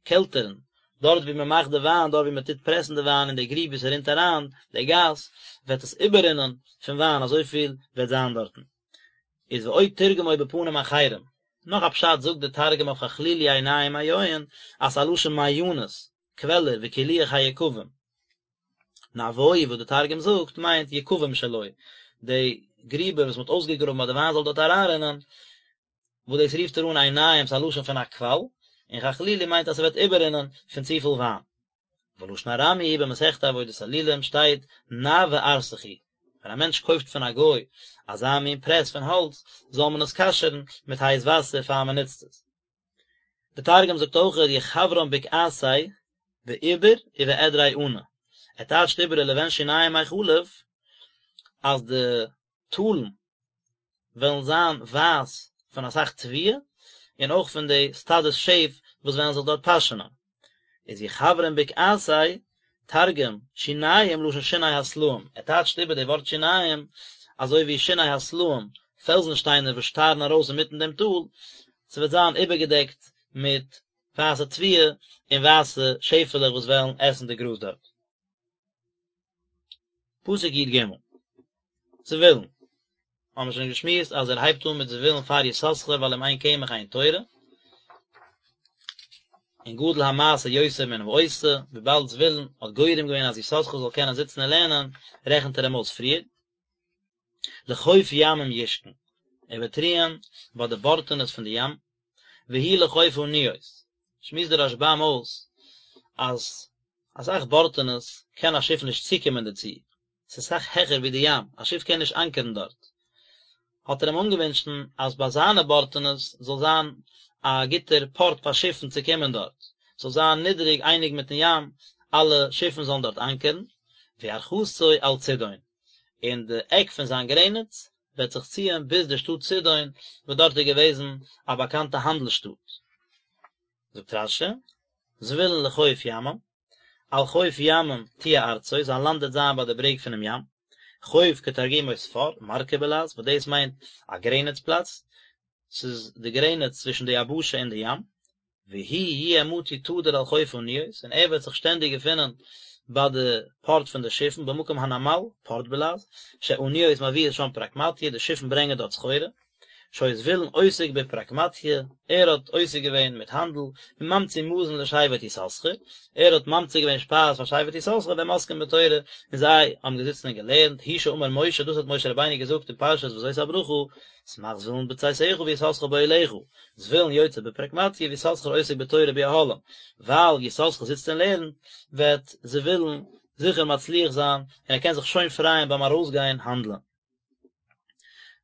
קעלטערן, דארט ווי מען מאכט די וויין, דארט ווי מען טוט פרעסן די וויין אין די גריב ווי ס'רינט אריין די גאס, וועט עס איבעררינען פון וויין, אזויפיל וועט זיין דארטן. איז ועוד תרגמו בפנים אחרים, נאך א פשט זאגט די תרגום אויף חכלילי עיניים מיין, אז ס'איז א לשון מעיינות, קוועלער, וקילוח היקבים. נהוואי וואס די תרגום זאגט מיינט יקבים שלו, די גריבער וואס מען האט אויסגעגראבן אז די וויין זאל דארט אריינרינען, וואס דאס רופט ער אן עיניים ס'איז א לשון פון א קוואל, און חכלילי מיינט אז ס'וועט איבעררינען פון צופיל וויין. ולשון ארמי במסכת עבודת אלילים שטייט נאוה ארסכו, ווען א מענטש קויפט פון א גוי אזא מין פרעס פון האלץ, זאל מען עס כשר'ן מיט הייס וואסער פאר מען נוצט עס. די תרגום זאגט אויך יחוורן בקעתיה בעיבר ובעדרי ענא, ער טייטשט איבער ולבן שיניים מחלב אז די טאלן וועלן זיין ווייס פון אסאך תבואה און אויך פון די סטאדעס שעף וואס וועלן זיך דארט פאשענען. איז יחוורן בקעתיה, תרגום, שיניים לשון שיני הסלעים, ער טייטשט איבער די ווארט שיניים אזוי ווי שיני הסלעים, פעלזן שטיינער וואס שטארן ארויס אינמיטן דעם טאל, ס'וועט זיין איבערגעדעקט מיט ווייסע תבואה און ווייסע שעפעלעך וואס וועלן עסן די גראז דארט. פסוק י"ג, זבולון, האבן מיר שוין געשמועסט אז ער הייבט אן מיט זבולון פאר יששכר ווייל אם אין קמח אין תורה, און גדול המעשה יותר מן העושה, וויבאלד זבולון האט גורם געווען אז יששכר זאל קענען זיצן און לערנען, רעכנט ער אים אויס פריער. לחוף ימים ישכון, ער וועט רוען ביי די בארטענעס פון די ים, והוא לחוף אניות, שמועסט דער רשב"ם אויס אז אסאך בארטענעס קען א שיף נישט צוקומען דערצו, ס'איז סאך העכער ווי די ים, א שיף קען נישט אנקערן דארט. האט ער אים אנגעווינטשן אז ביי זיינע בארטענעס זאל זיין א גוטער פארט פאר שיפן צו קומען דארט, ס'זאל זיין נידעריג אייניג מיטן ים, אלע שיפן זאלן דארט אנקערן, וירכתו על צידון, און די עק פון זיין גרעניץ וועט זיך ציען ביז די שטאט צידון, וואס דארט איז געוועזן א באקאנטע האנדל שטאט. זאגט רש"י, זבולון לחוף ימים, על חוף ימים תהיה ארצו, זיין לאנד וועט זיין ביי די ברעג פונעם ים, חוף כתרגומו ספר, מרכא בלע"ז, וואס דאס מיינט א גרעניץ פלאץ, ס'איז די גרעניץ צווישן די יבשה און די ים, והוא יהיה מצוי תדיר על חוף אניות, און ער וועט זיך שטענדיג געפינען ביי די פארט פון די שיפן, במקום הנמל, פארט בלע"ז, שאניות מביאות שם פרקמטיא, די שיפן ברענגען דארט סחורה. שהיה זבולון עוסק בפרקמטיא, ער האט עוסק געווען מיט האנדל, וממציא מזון לשבט יששכר, ער האט ממציא געווען שפייז פאר שבט יששכר והם עוסקים בתורה, און זיי האבן געזיצן און געלערנט, הוא שאמר משה, דאס האט משה רבינו געזאגט אין פרשת וזאת הברכה, שמח זבולון בצאתך ויששכר באהליך, זבולון יוצא בפרקמטיא ויששכר עוסק בתורה באהלים, ווייל יששכר זיצט און לערנט, וועט זבולון זיכער מצליח זיין, און ער קען זיך שוין פרייען ביים ארויסגיין האנדלען.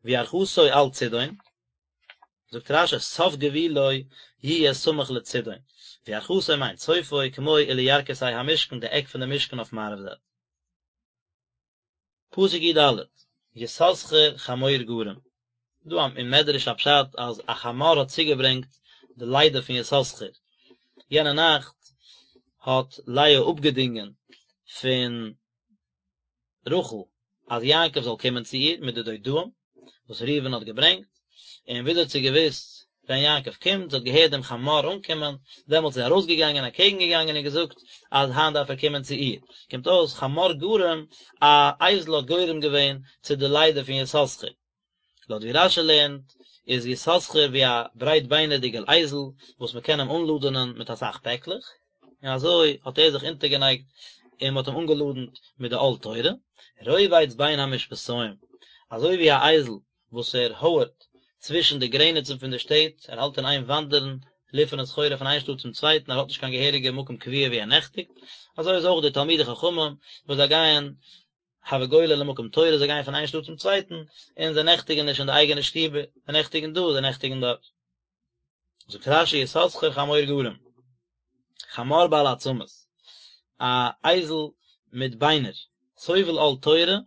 וירכתו על צידון, זאגט רש"י סוף גבולו יהיה סמוך לצידון, וירכתו מיינט סופו כמו ולירכתי המשכן די עק פון די משכן אויף מערב זייט. פסוק י"ד, יששכר חמור גרם, דא אין מדרש א פשט אז א חמור האט צוגעברענגט די לידה פון יששכר. יענע נאכט האט לאה אפגעדינגען פון רחל אז יעקב זאל קומען צו איר מיט די דודאים וואס ראובן האט געברענגט, און וויאזוי האט זי געוואוסט ווען יעקב קומט, זי האט געהערט דעם חמור אנקומען, דעמאלטס איז זי ארויסגעגאנגען אקעגן געגאנגען און געזאגט אז היינט דארף ער קומען צו איר, קומט אויס חמור גרם, א אייזל האט גורם געווען צו די לידה פון יששכר. לויט ווי רש"י לערנט איז יששכר ווי א ברייטביינערדיגער אייזל וואס מען קען אים אנלאדענען מיט אסאך פעקלעך, און אזוי האט ער זיך אונטערגענייגט און מען האט אים אנגעלאדענט מיט די עול תורה, רובץ בין המשפתים, אזוי ווי א אייזל וואס ער הויערט צווישן די גרעניצן פון די שטעט, ער האלט אין איין וואנדערן, ליפערן סחורה פון איין שטאט צום צווייטן, ער האט נישט קיין געהעריגע מקום קבוע וואו ער נעכטיגט, אזוי איז אויך די תלמידי חכמים וואס זיי גייען הוה גולי למקום תורה, זיי גייען פון איין שטאט צום צווייטן, און זיי נעכטיגן נישט אין די אייגענע שטיבער, זיי נעכטיגן דא, זיי נעכטיגן דארט. זאגט רש"י יששכר חמור גרם, חמור בעל עצמות, א אייזל מיט ביינער, סובל עול תורה,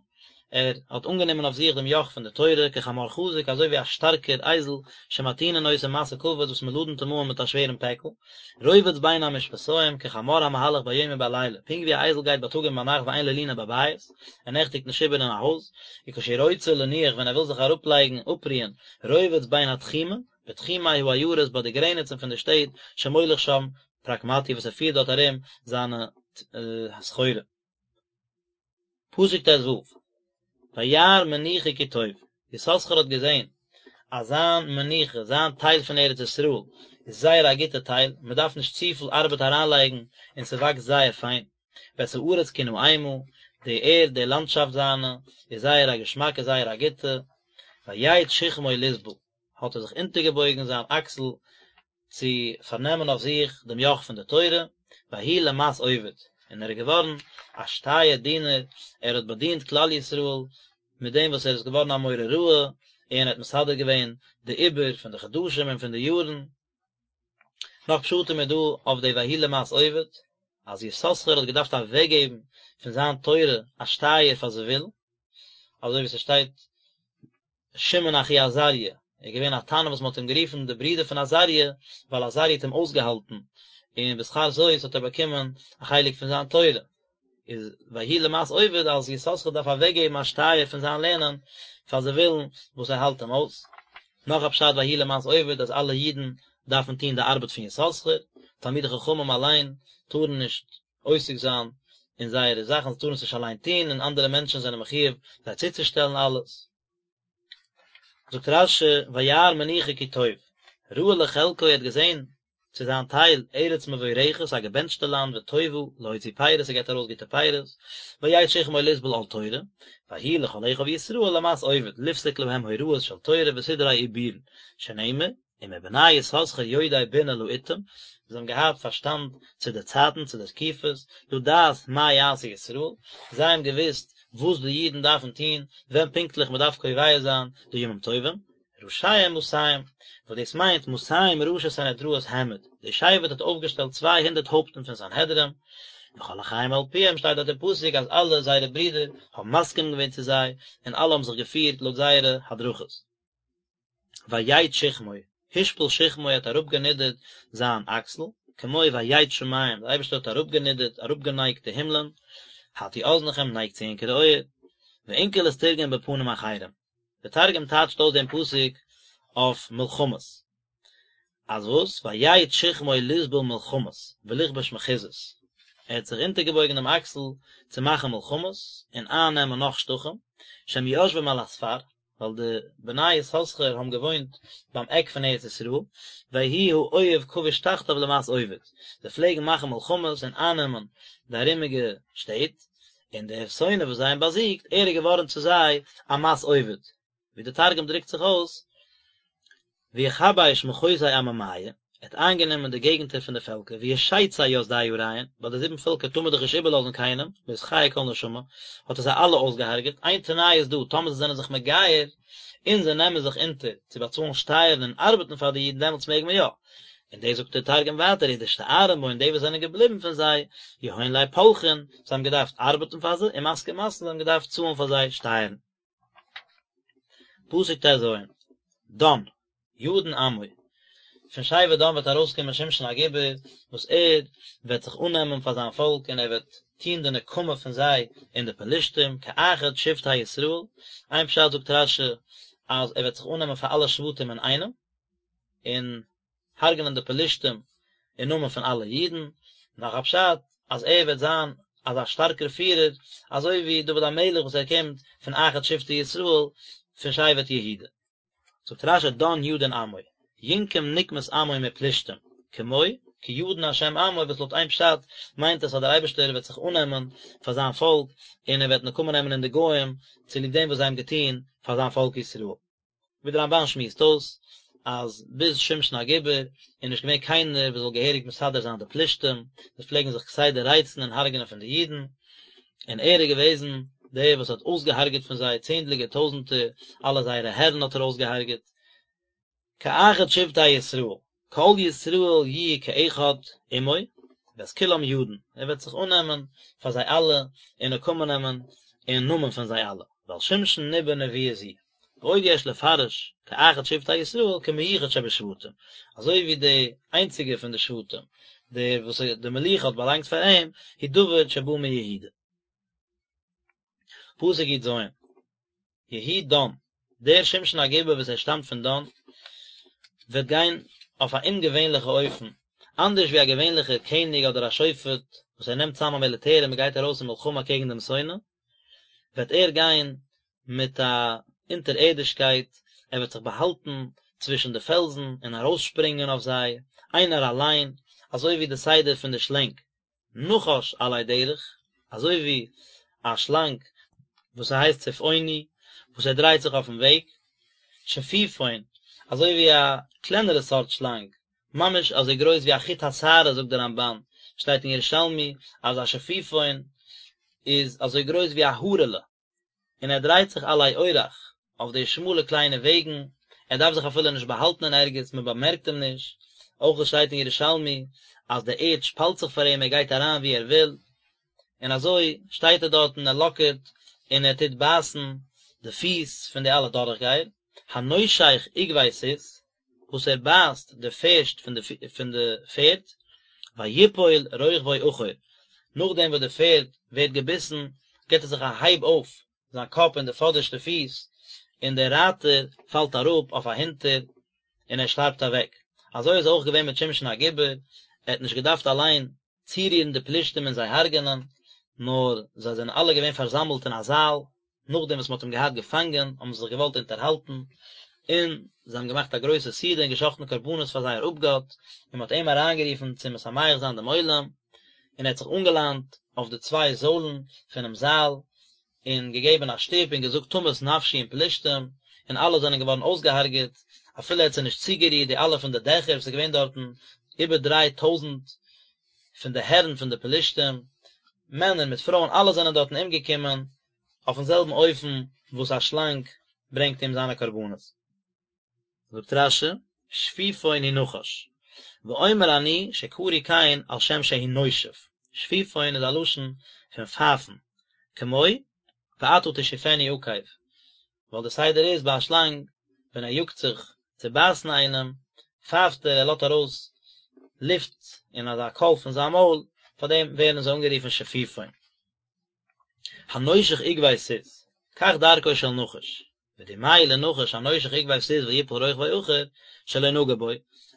ער האט אנגענומען אויף זיך דעם יאך פון די תורה, כחמור חזק, אזוי ווי א שטארקער אייזל, שמטעינין אותו משא כבד, וואס מען לאדנט אים אן מיט א שווערן פעקל, רובץ בין המשפתים, כחמור המהלך ביום ובלילה, פונקט ווי א אייזל גייט בייטאג און ביינאכט ואין לו לינה בבית, ער נעכטיגט נישט איבער אין א הויז, וכשהוא רוצה לנוח ווען ער וויל זיך אראפלייגן אפרוען, רובץ בין התחומין, בתחומי העיירות ביי די גרעניצן פון די שטעט, שמוליך שם פרקמטיא וואס ער פירט דארט ארום זיינע סחורה. פסוק ט"ו, וירא מנוחה כי טוב, יששכר האט געזען אז זיין מנוחה, זיין טייל פון ארץ ישראל, איז זייער א גוטע טייל, מען דארף נישט צופיל ארבעט אריינלייגן און ס'וואקסט זייער פיין, ואת הארץ כי נעמה, די ערד, די לאנדשאפט זיינע, איז זייער א געשמאקע, זייער א גוטע, ויט שכמו לסבול, האט ער זיך אונטערגעבויגן זיין אקסל צו פארנעמען אויף זיך דעם יאך פון די תורה, ויהי למס עובד, און ער איז געווארן א שטייער דינער, ער האט באדינט כלל ישראל מיט דעם וואס ער איז געווארן א מורה הוראה, און ער האט מסדר געווען די עיבור פון די חדשים און פון די יארן. נאך פשטים איז דא אויף די ויהי למס עובד, אז יששכר האט געדארפט אוועקגעבן פון זיין תורה א שטייער פאר זבולון, אזוי ווי ס'שטייט שמעון אחי עזריה, ער איז געווען א תנא וואס מען האט אים גערופן די ברודער פון עזריה, ווייל עזריה האט אים אויסגעהאלטן, און בשכר זאת האט ער באקומען א חלק פון זיין תורה. איז ויהי למס עובד אז יששכר דארף אוועקגעבן א שטייער פון זיין לערנען פאר זבולון וואס ער האלט אים אויס. נאך א פשט ויהי למס עובד אז אלע אידן דארפן טון די ארבעט פון יששכר, תלמידי חכמים אליין טארן נישט עוסק זיין אין זייערע זאכן, זיי טארן עס נישט אליין טון, און אנדערע מענטשן זענען מחיוב זיי צוצושטעלן אלעס. זאגט רש"י וירא מנוחה כי טוב, ראה לחלקו ער האט געזען צו זיין טייל ארץ מבורכת א געבענטשטע לאנד וטובה להוציא פירות ס'געבט ארויס גוטע פירות, ויט שכמו לסבול עול תורה, ויהי לכל אחיו ישראל למס עובד לפסוק להם הוראות של תורה וסדרי עיבורין, שנאמר, ומבני יששכר יודעי בינה לעתים, זיי האבן געהאט פארשטאנד צו די צייטן, צו די תקופות, לדעת מה יעשו ישראל, זיי האבן געוואוסט וואס די אידן דארפן טון, ווען פונקטליך מען דארף קובע זיין די ימים טובים, ראשיהם מאתים, וואס דאס מיינט מאתים ראשי סנהדראות העמיד, די שבט האט אויפגעשטעלט 200 הויפטן פון סנהדרין, וכל אחיהם על פיהם שטייט דארט אין פסוק אז אלע זייערע ברידער האבן מסכים געווען צו זיי, און אלע האבן זיך געפירט לויט זייערע הדרכות. ויט שכמו, השפיל שכמו האט אראפגענידערט זיין אקסל, כמו ויט שמים, דער אייבערשטער האט אראפגענידערט, אראפגענייגט די הימלען, הטו אזנכם, נייגט צו ענקערע אויער, ואונקלוס תרגם בפנים אחרים, דער תרגום טייטשט אויס דעם פסוק אויף מלחמות, אז וואס? ויט שכמו לסבול מלחמות, ולכבוש מחוזות, ער האט זיך אונטערגעבויגן דעם אקסל צו מאכן מלחמות און אייננעמען נאך שטחים, שהם יושבים על הספר, ווייל די בני יששכר האבן געוואוינט ביים עק פון ארץ ישראל, ויהי האויב כבוש תחתיו למס עובד, זיי פלעגן מאכן מלחמות און אייננעמען די ארומיגע שטעט, און דער שונא וואס זיי האבן באזיגט, ער איז געווארן צו זיי א מס עובד, ווי דער תרגום דרוקט זיך אויס, ויכביש מחוזי עממיא, ער האט איינגענומען די געגנטער פון די פעלקער, וישיצי ית די אריין, ביי די זיבן פעלקער טאר מען דאך נישט איבערלאזן קיינעם, לא תחיה כל נשמה, האט ער זיי אלע אויסגעהארגעט, איין תנאי איז דא, טאמער זיי זענען זיך מגייר, און זיי נעמען זיך אונטער צו באצאלן שטייערן און ארבעטן פאר די אידן דעמאלטס מעג מען יא. און דאס זאגט דער תרגום ווייטער, ודאשתארן בהון די וואס זענען געבליבן פון זיי, יהון ליה פלחין, זיי האבן געדארפט ארבעטן פאר זיי, ומסקי מסין, זיי האבן געדארפט צאלן פאר זיי שטייערן. פסוק ט"ז, דן, ידין עמו. פון שבט דן וועט ארויסקומען שמשון הגיבור, וואס ער וועט זיך אננעמען פאר זיין פאלק און ער וועט טון די נקמה פון זיי אין די פלשתים, כאחד שבטי ישראל, איין פשט זאגט רש"י אז ער וועט זיך אננעמען פאר אלע שבטים אינאיינעם, און הרג'נען די פלשתים אין נאמען פון אלע אידן, נאך א פשט אז ער וועט זיין אזא שטארקער פירער אזוי ווי דוד המלך וואס ער קומט פון אחד שבטי ישראל פון שבט יהודה. זאגט רש"י דן ידין עמו, ינקום נקמת עמו מפלשתים, כמו, כי ידין השם עמו וואס לויט איין פשט מיינט עס אז דער אייבערשטער וועט זיך אננעמען פאר זיין פאלק און ער וועט נקמה נעמען אין די גוים צוליב דעם וואס זיי האבן געטון פאר זיין פאלק ישראל. ווי דער רמב"ן שמועסט אויס אז ביז שמשון הגיבור איז נישט געווען קיינער וואס זאל געהעריג מסדר זיין די פלישתים, זיי פלעגן זיך כסדר רייצן און הרג'נען פון די אידן, און ער איז געוועזן דער וואס האט אויסגעהארגעט פון זיי צענדליגער טויזנטער, אלע זייערע הערן האט ער אויסגעהארגעט. כאחד שבטי ישראל, כל ישראל יהיו כאחד עמו, ואת כולם ידין, ער וועט זיך אננעמען פאר זיי אלע און נקמה נעמען אין נאמען פון זיי אלע, ועל שמשון ניבא נבואה זו. ועוד יש לפרש כאחד שבטי ישראל כמיוחד שבשבטים, אזוי ווי די איינציגע פון די שבטים, דער וואס די מלוכה האט באלאנגט פאר אים, הוא דוד שבא מיהודה. פסוק י"ז, יהי דן, דער שמשון הגיבור וואס ער שטאמט פון דן, וועט גיין אויף א אומגעווענליכע אופן, אנדערש ווי א געווענליכער קעניג אדער א שופט וואס ער נעמט צאם א מיליטער און מען גייט ארויס אין מלחמה קעגן דעם שונא, וועט ער גיין מיט א אונטערערדישקייט, ער וועט זיך באהאלטן צווישן די פעלזן און ארויסשפרינגען אויף זיי, איינער אליין, אזוי ווי די סדר פון די שלענג, נחש עלי דרך, אזוי ווי א שלאנג וואס ס'הייסט צפעוני, וואס ער דרייט זיך אויפן וועג, שפיפון, אזוי ווי א קלענערע סארט שלאנג, ממש אזוי גרויס ווי א חוט השערה זאגט דער רמב"ן, שטייט אין ירושלמי אז א שפיפון איז אזוי גרויס ווי א הארעלע. און ער דרייט זיך עלי אורח אויף די שמאלע קליינע וועגן, ער דארף זיך אפילו נישט באהאלטן אין ערגעץ, מען באמערקט אים נישט, אויך עס שטייט אין ירושלמי אז די ערד שפאלט זיך פאר אים, ער גייט אריין וואו ער וויל, און אזוי שטייט ער דארט און ער לאקערט און ער טוט בייסן די פיס פון די אלע דורכגייער, הנושך עקבי סוס, וואס ער בייסט די פערשט פון די פון די פערד, ויפול רוכבו אחור, נאכדעם וואס די פערד ווערט געביסן גיבט ער זיך א הייב אויף זיין קאפ און די פאדערשטע פיס, און דער רייטער פאלט אראפ אויף אהינטער און ער שטארבט אוועק. אזוי איז אויך געווען מיט שמשון הגיבור, ער האט נישט געדארפט אליין צורירן די פלישתים און זיי הרג'ענען, נאר זיי זענען אלע געווען פארזאמלט אין א זאל, נאכדעם וואס מען האט אים געהאט געפאנגען, האבן זיי זיך געוואלט אונטערהאלטן, און זיי האבן געמאכט א גרויסע סעודה און געשחט'ן קרבנות פאר זייער אפגאט, און מען האט אים אריינגערופן צו משמח זיין דעם עולם, און ער האט זיך אנגעליינט אויף די צוויי זוילן פונעם זאל, און געגעבן א שטופ און געזאגט תמות נפשי עם פלישתים, און אלע זענען געווארן אויסגעהארגעט, אפילו ער האט זיי נישט צוגערירט, די אלע פון די דעכער וואס איז געווען דארטן איבער 3000 פון די הערן פון די פלישתים, מענער מיט פרויען אלע זענען דארטן אומגעקומען, אויפן זעלבן אופן וואס א שלאנג ברענגט אום זיינע קרבנות. זאגט רש"י, שפיפון הוא נחש, ואומר אני שקרוי כן על שם שהוא נושף, שפיפון איז א לשון פון פייפן, כמו ואתה תשופני עקב, ווייל די סדר איז ביי א שלאנג ווען ער יאגט זיך צו בייסן איינעם, פייפט ער, ער לאזט ארויס לופט און אזא קול פון זיין מויל, פארדעם ווערן זיי אנגערופן שפיפון. הנושך עקבי סוס, כך דרכו של נחש, ודמהו לנחש הנושך עקבי סוס ויפול רוכבו אחור, שלא נגע בו,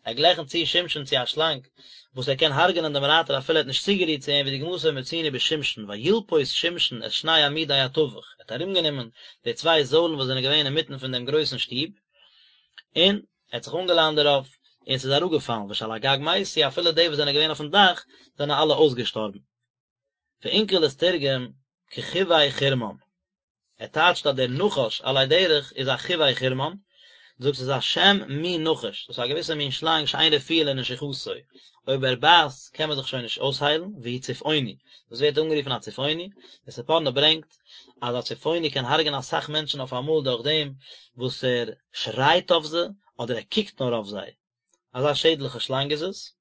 ער גלייכנט צו שמשון צו א שלאנג, וואס ער קען הרג'נען דעם רייטער אפילו ער האט נישט צוגערירט צו אים ודוגמתו מצינו בשמשון וילפות שמשון את שני עמודי התווך, ער האט ארומגענומען די צוויי זוילן וואס זענען געווען אינמיטן פון דעם גרויסן שטוב, און ער האט זיך אנגעליינט דערויף, און ס'איז אראפגעפאלן, ושעל הגג מתו, אפילו די וואס זענען געווען אויפן דאך זענען אלע אויסגעשטארבן. ואונקלוס תרגם כחוי חרמן, ער טייטשט אז דער נחש עלי דרך איז א חוי חרמן, דו זאגסט עס איז א שם מין נחש, דאס איז א געוויסע מין שלאנג שאין רפואה לנשיכתו, אויב ער בייסט קען מען זיך שוין נישט אויסהיילן, והוא צפעוני, דאס ווערט אנגערופן א צפעוני, דער ספורנו ברענגט אז א צפעוני קען הרג'ענען אסאך מענטשן אויף אמאל דורך דעם וואס ער שרייט אויף זיי אדער ער קוקט נאר אויף זיי, אזא שעדליכע שלאנג איז עס.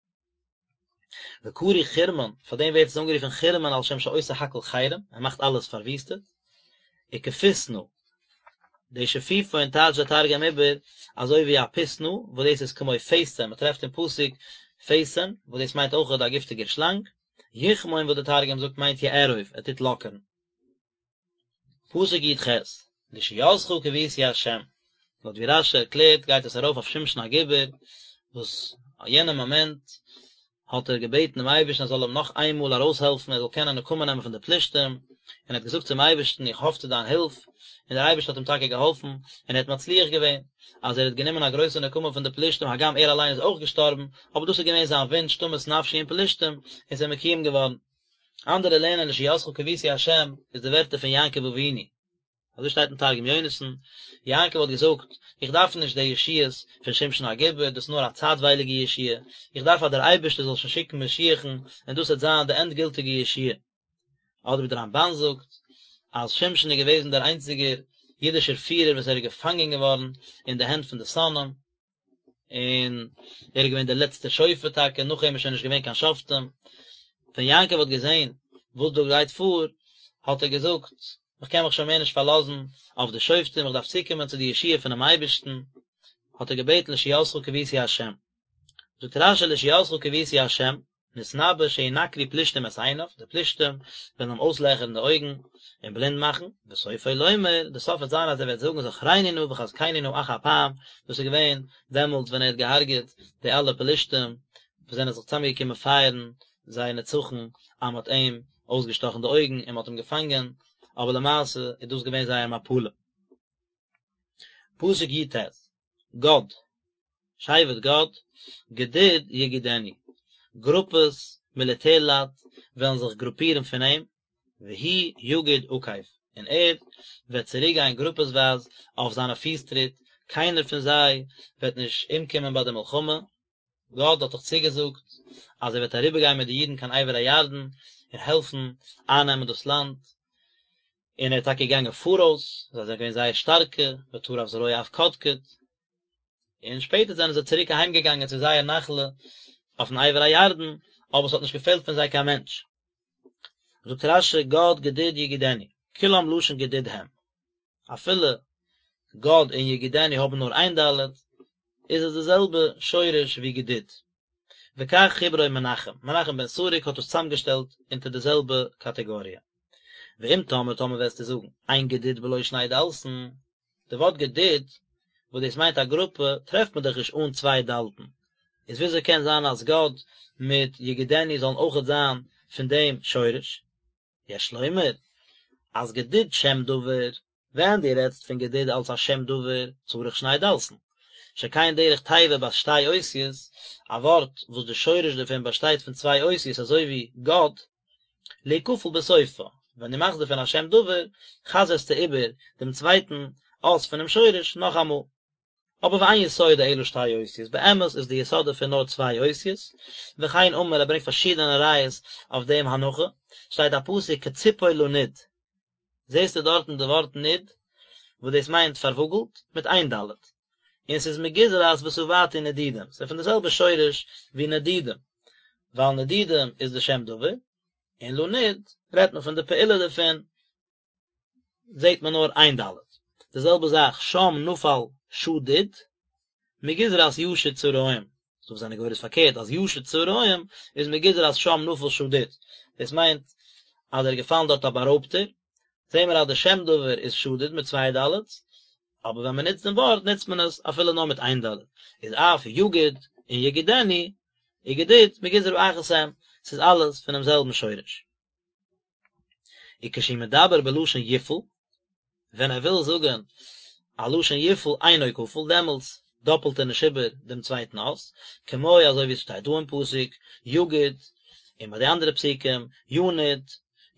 וקרוי חרמן, פאר דעם ווערט עס אנגערופן חרמן על שם שעושה הכל חרם, ער מאכט אלעס פארוויסטעט. וכפיתנא. די שפיפון טייטשט דער תרגום איבער אזוי ווי א פותנא, וואס דאס איז כמו פתן, מען טרעפט אין פסוק פתן, וואס דאס מיינט אויכעט א גיפטיגער שלאנג, יכמון וואס דער תרגום זאגט מיינט יארוב, ער טוט לאקערן. פסוק י"ח, לישועתך קויתי ה', לויט ווי רש"י ערקלערט גייט עס ארויף אויף שמשון הגיבור, וואס יענע מאמענט האט ער געבעטן דעם אייבערשטן ער זאל אים נאך איין מאל ארויסהעלפן ער זאל קענען נקמה נעמען פון די פלישתים, און ער האט געזאגט צום אייבערשטן איך האף צו דיין הילף, און דער אייבערשטער האט אים טאקע געהאלפן, און ער האט מצליח געווען, אז ער האט גענומען א גרויסע נקמה פון די פלישתים הגם ער אליין איז אויך געשטארבן, אבער דאס איז געווען זיין וואונטש תמות נפשי עם פלישתים, און ס'איז מקוים געווארן. אנדערע לערנען לישועתך קויתי ה' איז די ווערטער פון יעקב אבינו. אזוי שטייט אין תרגום יונתן, יעקב האט געזאגט, איך דארף נישט די ישועות פון שמשון הגיבור, דאס איז נאר א צייטווייליגע ישועה, איך דארף אז דער אייבערשטער זאל שוין שיקן משיח'ן, און דאס וועט זיין די ענדגילטיגע ישועה. אדער ווי דער רמב"ן זאגט, אז שמשון איז געוועזן דער איינציגער אידישער פירער וואס ער איז געפאנגען געווארן אין די הענט פון די שונאים, און ער איז געווען דער לעצטער שופט טאקע, נאך אים איז שוין נישט געווען קיין שופטים. ווען יעקב האט געזען וואס דא גייט פאר, האט ער געזאגט, איך קען מיך שוין מער נישט פארלאזן אויף די שופטים, איך דארף צוקומען צו די ישועה פונעם אייבערשטן, האט ער געבעטן לישועתך קויתי ה'. זאגט רש"י לישועתך קויתי ה', נתנבא שינקרו פלישתים את עיניו, די פלישתים וועלן אים אויסלעכערן די אויגן און בלינד מאכן, וסופו לומר, די סוף וועט זיין אז ער וועט זאגן זכרני נא וחזקני נא אך הפעם, דאס איז געווען דעמאלטס ווען ער האט געהארגעט די אלע פלישתים וואס זענען זיך צוזאמגעקומען פייערן זייער נצחון אז מען האט אים אויסגעשטאכן די אויגן און מען האט אים געפאנגען, אבער למעשה איז דאס געווען זייער מפלה. פסוק י"ט, גד, שבט גד, גדוד יגודנו, גרופעס מיליטערלייט וועלן זיך גרופירן פון אים, והוא יגוד עקב, און ער וועט צוריקגיין גרופעסווייז אויף זיינע פיסטריט, קיינער פון זיי וועט נישט אומקומען ביי די מלחמה, גד האט דאך צוגעזאגט אז ער וועט אריבערגיין מיט די אידן קיין עבר הירדן און העלפן אייננעמען דאס לאנד, און ער איז טאקע געגאנגען פאראויס, זיי זענען געווען זייער שטארקע, ותרף זרוע אף קדקד, און שפעטער זענען זיי צוריק אהיים געגאנגען צו זייער נחלה אויפן עבר הירדן, אבער עס האט נישט געפעלט פון זיי קיין מענטש. זאגט רש"י גד גדוד יגודנו, כולם לשון גדוד הם, אפילו גד און יגודנו האבן נאר איין ד', איז עס די זעלבע שורש ווי גדוד. וכך חיברו מנחם, מנחם בן סרוק האט עס צוזאמגעשטעלט אונטער די זעלבע קאטעגאריע. ואם תאמר טאמער וועסטו זאגן, אין גדוד בלא שני דלת'ן, די ווארט גדוד, וואס דאס מיינט א גרופע, טרעפט מען דאך נישט אן צוויי דלת'ן, איז וויאזוי קען זיין אז גד מיט יגודנו זאלן אויכעט זיין פון דעם שורש? יש לומר, אז גדוד שם דבר, ווען דו רעדסט פון גדוד אלס א שם דבר, צריך שני דלת'ן. שכן דרך תיבה בת שתי אותיות, א ווארט וואס די שורש דערפון באשטייט פון צוויי אותיות אזוי ווי גד, להיכפל בסופה, ווען דו מאכסט דערפון א שם דבר, חזר'סטו איבער דעם צווייטן אות פונעם שורש נאכאמאל. אבער ואין יסודו אלא שתי אותיות, באמת איז די יסוד דערפון נאר צוויי אותיות, וכן אמר ער ברענגט פארשידענע ראיות אויף דעם הנחה, שטייט א פסוק כציפור לנוד, זעסטו דארטן די ווארט נוד, וואס דאס מיינט פארוואגלט, מיט איין ד', און ס'איז מגזרת ושבעתי נדודים, ס'איז פון די זעלבע שורש ווי נדודים, ווייל נדודים איז די שם דבר, און לנוד רעדט מען פון די פעולה דערפון, זעט מען נאר איין ד'. די זעלבע זאך שם נפל שדוד, מגזרת ישוד צהרים, ס'דא וואס זענען גורס פארקערט אז ישוד צהרים איז מגזרת שם נפל שדוד, דאס מיינט אז ער איז געפאלן דארט א בארויבטער, זעהן מיר אז די שם דבר איז שדוד מיט צוויי ד', אבער ווען מען נוצט דעם ווארט נוצט מען עס אפילו נאר מיט איין ד', איז אף יגוד און יגודנו, וגדוד מגזרה אחת הם, ס'איז אלעס פונעם זעלבן שורש. וכשהוא מדבר בלשון יפעל, ווען ער וויל זאגן א לשון יפעל אינו כפול, דעמאלטס דאפלט ער נישט איבער דעם צווייטן אות, כמו אזוי ווי עס שטייט דא אין פסוק, יגוד, און ביי די אנדערע פסוקים, ינוד,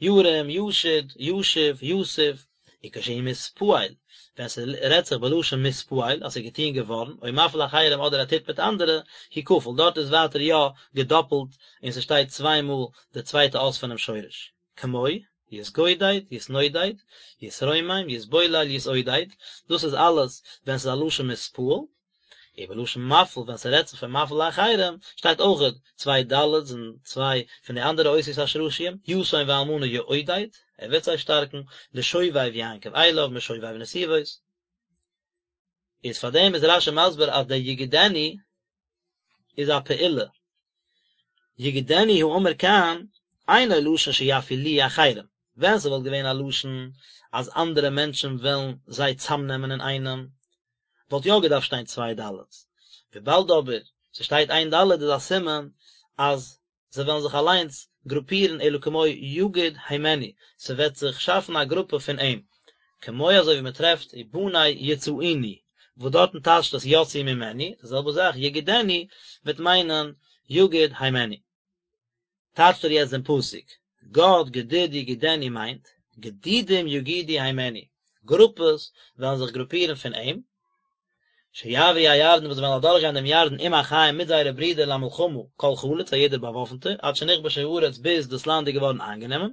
ירים, ישוד, ישיב, יסוב, וכשהוא מתפעל, ווען ס'רעדט זיך בלשון מתפעל, אז ס'איז געטון געווארן, או מפעיל אחרים אדער ער טוט מיט אנדערע, הוא כפול, דארט איז ווייטער יא געדאפלט און ס'שטייט צוויי מאל די צווייטע אות פונעם שורש. כמו, יתגודד, יתנודד, יתרומם, יתבולל, יתעודד, דאס איז אלעס ווען ס'איז א לשון מתפעל, ובלשון מפעיל ווען ס'רעדט זיך פון מפעיל לאחרים, שטייט אויכעט צוויי ד' און צוויי פון די אנדערע אותיות השרשיים, יתום ואלמנה יעודד, ער וועט זיי שטארקן, לשובב יעקב אליו, משובב נתיבות. איז פאר דעם איז רשי מסביר אז דער יגודנו איז א פעולה, יגודנו האמור כאן אינו לשון שיפעילוהו אחרים, ווען ס'וואלט געווען א לשון אז אנדערע מענטשן וועלן זיי צאמנעמען אינאיינעם, וואלט יא געדארפט שטיין צוויי דלת'ס, וויבאלד אבער ס'שטייט איין דלת איז א סימן אז זיי וועלן זיך אליינס גרופירן אלא כמו יגוד הימנו, ס'וועט זיך שאפן א גרופע פון אים, כמו אזוי ווי מ'טרעפט ובני יצאוני, וואס דארטן טייטשט עס יצאו ממנו, די זעלבע זאך יגודנו וועט מיינען יגוד הימנו. טייטשט ער יעצט דעם פסוק, גד גדוד יגודנו מיינט, גדודים יגודו הימנו, גרופעס וועלן זיך גרופירן פון אים, שיעברו הירדן וואס וועלן אדורכגיין דעם ירדן עם אחיהם מיט זייערע ברידער למלחמה כל חלוץ א יעדער באוואפנטער עד שנכבשה הארץ ביז דאס לאנד איז געווארן איינגענומען,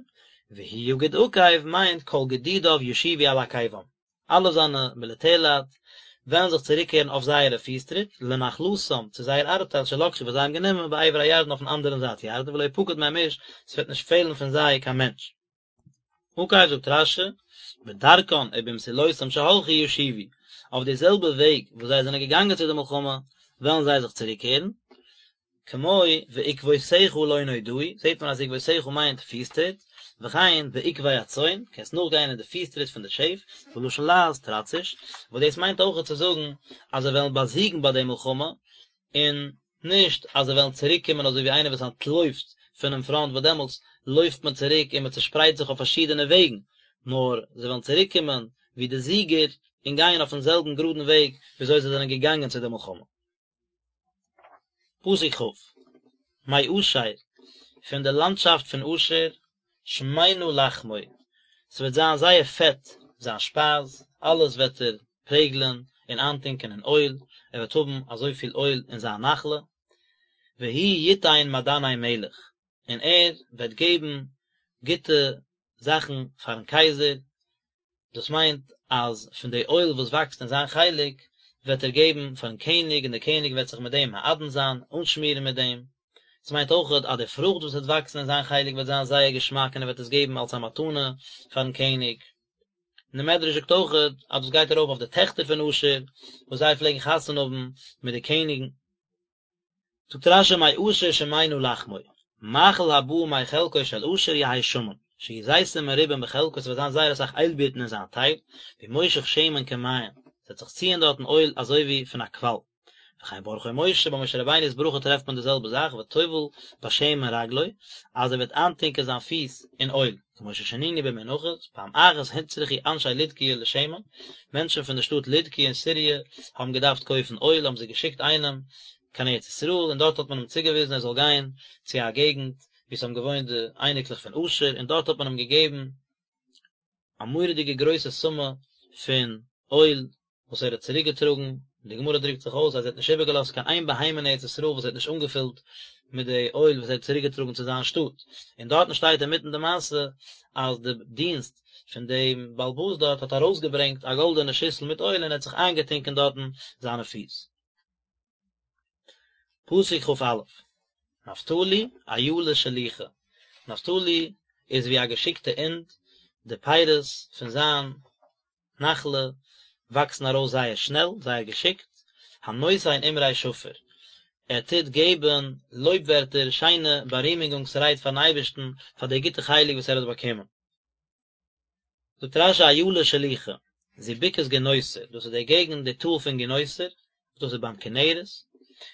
והוא יגוד עקב מיינט כל גדודיו ישובו על עקבם אלע זיינע מיליטערלייט וועלן זיך צוריקקערן אויף זייערע פיסטריט לנחלתם צו זייער ארבטייל שלקחו וואס זיי האבן גענומען בעבר הירדן אויפן אנדערן זייט ירדן ולא יפקד מהם איש ס'וועט נישט פעלן פון זיי קיין מענטש. עקב זאגט רשי, בדרכן ובמסילותם שהלכו ישובו, אויף די זעלבע וועג וואס זיי זענען געגאנגען צו די מלחמה וועלן זיי זיך צוריקקערן, כמו ועקבותיך לא נודעו, זעט מען אז עקבותיך מיינט פיסטריט, וכן בעקבי הצאן, קענסט נאכגיין אין די פיסטריט פון די שעף, ולשון לעז טראציש, וואס דאס מיינט אויכעט צו זאגן אז זיי וועלן באזיגן ביי די מלחמה, און נישט אז זיי וועלן צוריק קומען אזוי ווי איינער וואס אנטלויפט פונעם פראנט וואס דעמאלטס לויפט מען צוריק און מען צושפרייט זיך אויף פארשידענע וועגן, נאר זיי וועלן צוריק קומען ווי די זיגער און גייען אויפן זעלבן גראדן וועג ווי אזוי זיי זענען געגאנגען צו די מלחמה. פסוק כ', מאשר, פון די לאנדשאפט פון אשר, שמנה לחמו, ס'וועט זיין זייער פעט זיין שפייז, אלעס וועט ער פרעגלען און איינטונקען אין אויל, ער וועט האבן אזויפיל אויל אין זיין נחלה, והוא יתן מעדני מלך, און ער וועט געבן גוטע זאכן פארן קייזער, דאס מיינט אז פון די אויל וואס וואקסט אין זיין חלק וועט ער געבן פארן קעניג און דער קעניג וועט זיך מיט דעם מעדן זיין, אנשמירן מיט דעם. עס מיינט אויכעט אז די פרוכט וואס וועט וואקסן אין זיין חלק וועט זיין זייער געשמאק און ער וועט עס געבן אלס א מתנה פארן קעניג. און דער מדרש זאגט אויכעט אז דאס גייט ארויף אויף די טעכטער פון אשר וואס זיי פלעגן חתונה האבן מיט די קעניגן. זאגט רשי מאשר שמנה לחמו, מאכל הבא מחלקו של אשר יהא שמן, שיהיו זיתים מרובים בחלקו ס'וועט זיין זייער אסאך איילבירטן אין זיין טייל, והוא מושך שמן כמעין, ס'וועט זיך ציען דארטן אויל אזוי ווי פון א קוואל. וכן ברכו משה, ביי משה רבינו'ס ברכה טרעפט מען די זעלבע זאך, וטובל בשמן רגלו, אז ער וועט איינטונקען זיין פיס אין אויל, כמו ששנינו במנחות, פעם אחת הוצרכו אנשי לודקיא לשמן, מענטשן פון די שטאט לודקיא אין סיריע האבן געדארפט קויפן אויל האבן זיי געשיקט איינעם קיין ארץ ישראל און דארט האט מען אים צוגעוויזן ער זאל גיין צו א געגנט וואו ס'האבן געוואוינט די אייניקלעך פון אשר און דארט האט מען אים געגעבן א מורא'דיגע גרויסע סומע פון אויל וואס ער האט צוריק געטראגן, און די גמרא דרוקט זיך אויס אז ער האט נישט איבערגעלאזט קיין איין בהמה אין ארץ ישראל וואס ער האט נישט אנגעפילט מיט די אויל וואס ער האט צוריק געטראגן צו זיין שטאט, און דארטן שטייט אינמיטן די מעשה אז די דינסט פון דעם בעל הבית דארט האט ארויסגעברענגט א גאלדענע שיסל מיט אויל און ער האט זיך איינגעטונקען דארטן זיינע פיס. פסוק כ"א, נפתלי אילה שלוחה, נפתלי איז ווי א געשיקטע אינד, די פירות פון זיין נחלה וואקסן ארויס זייער שנעל, זייער געשיקט, הנותן אמרי שפר, ער טוט געבן לויב ווערטער, שיינע בארימונגונגס רייד פארן אייבערשטן פאר די גוטע חלק וואס ער האט באקומען. זאגט רש"י אילה שלוחה, זו בקעת גינוסר, דאס איז די געגנט, די טאל פון גינוסר, דאס איז ביים כנרת,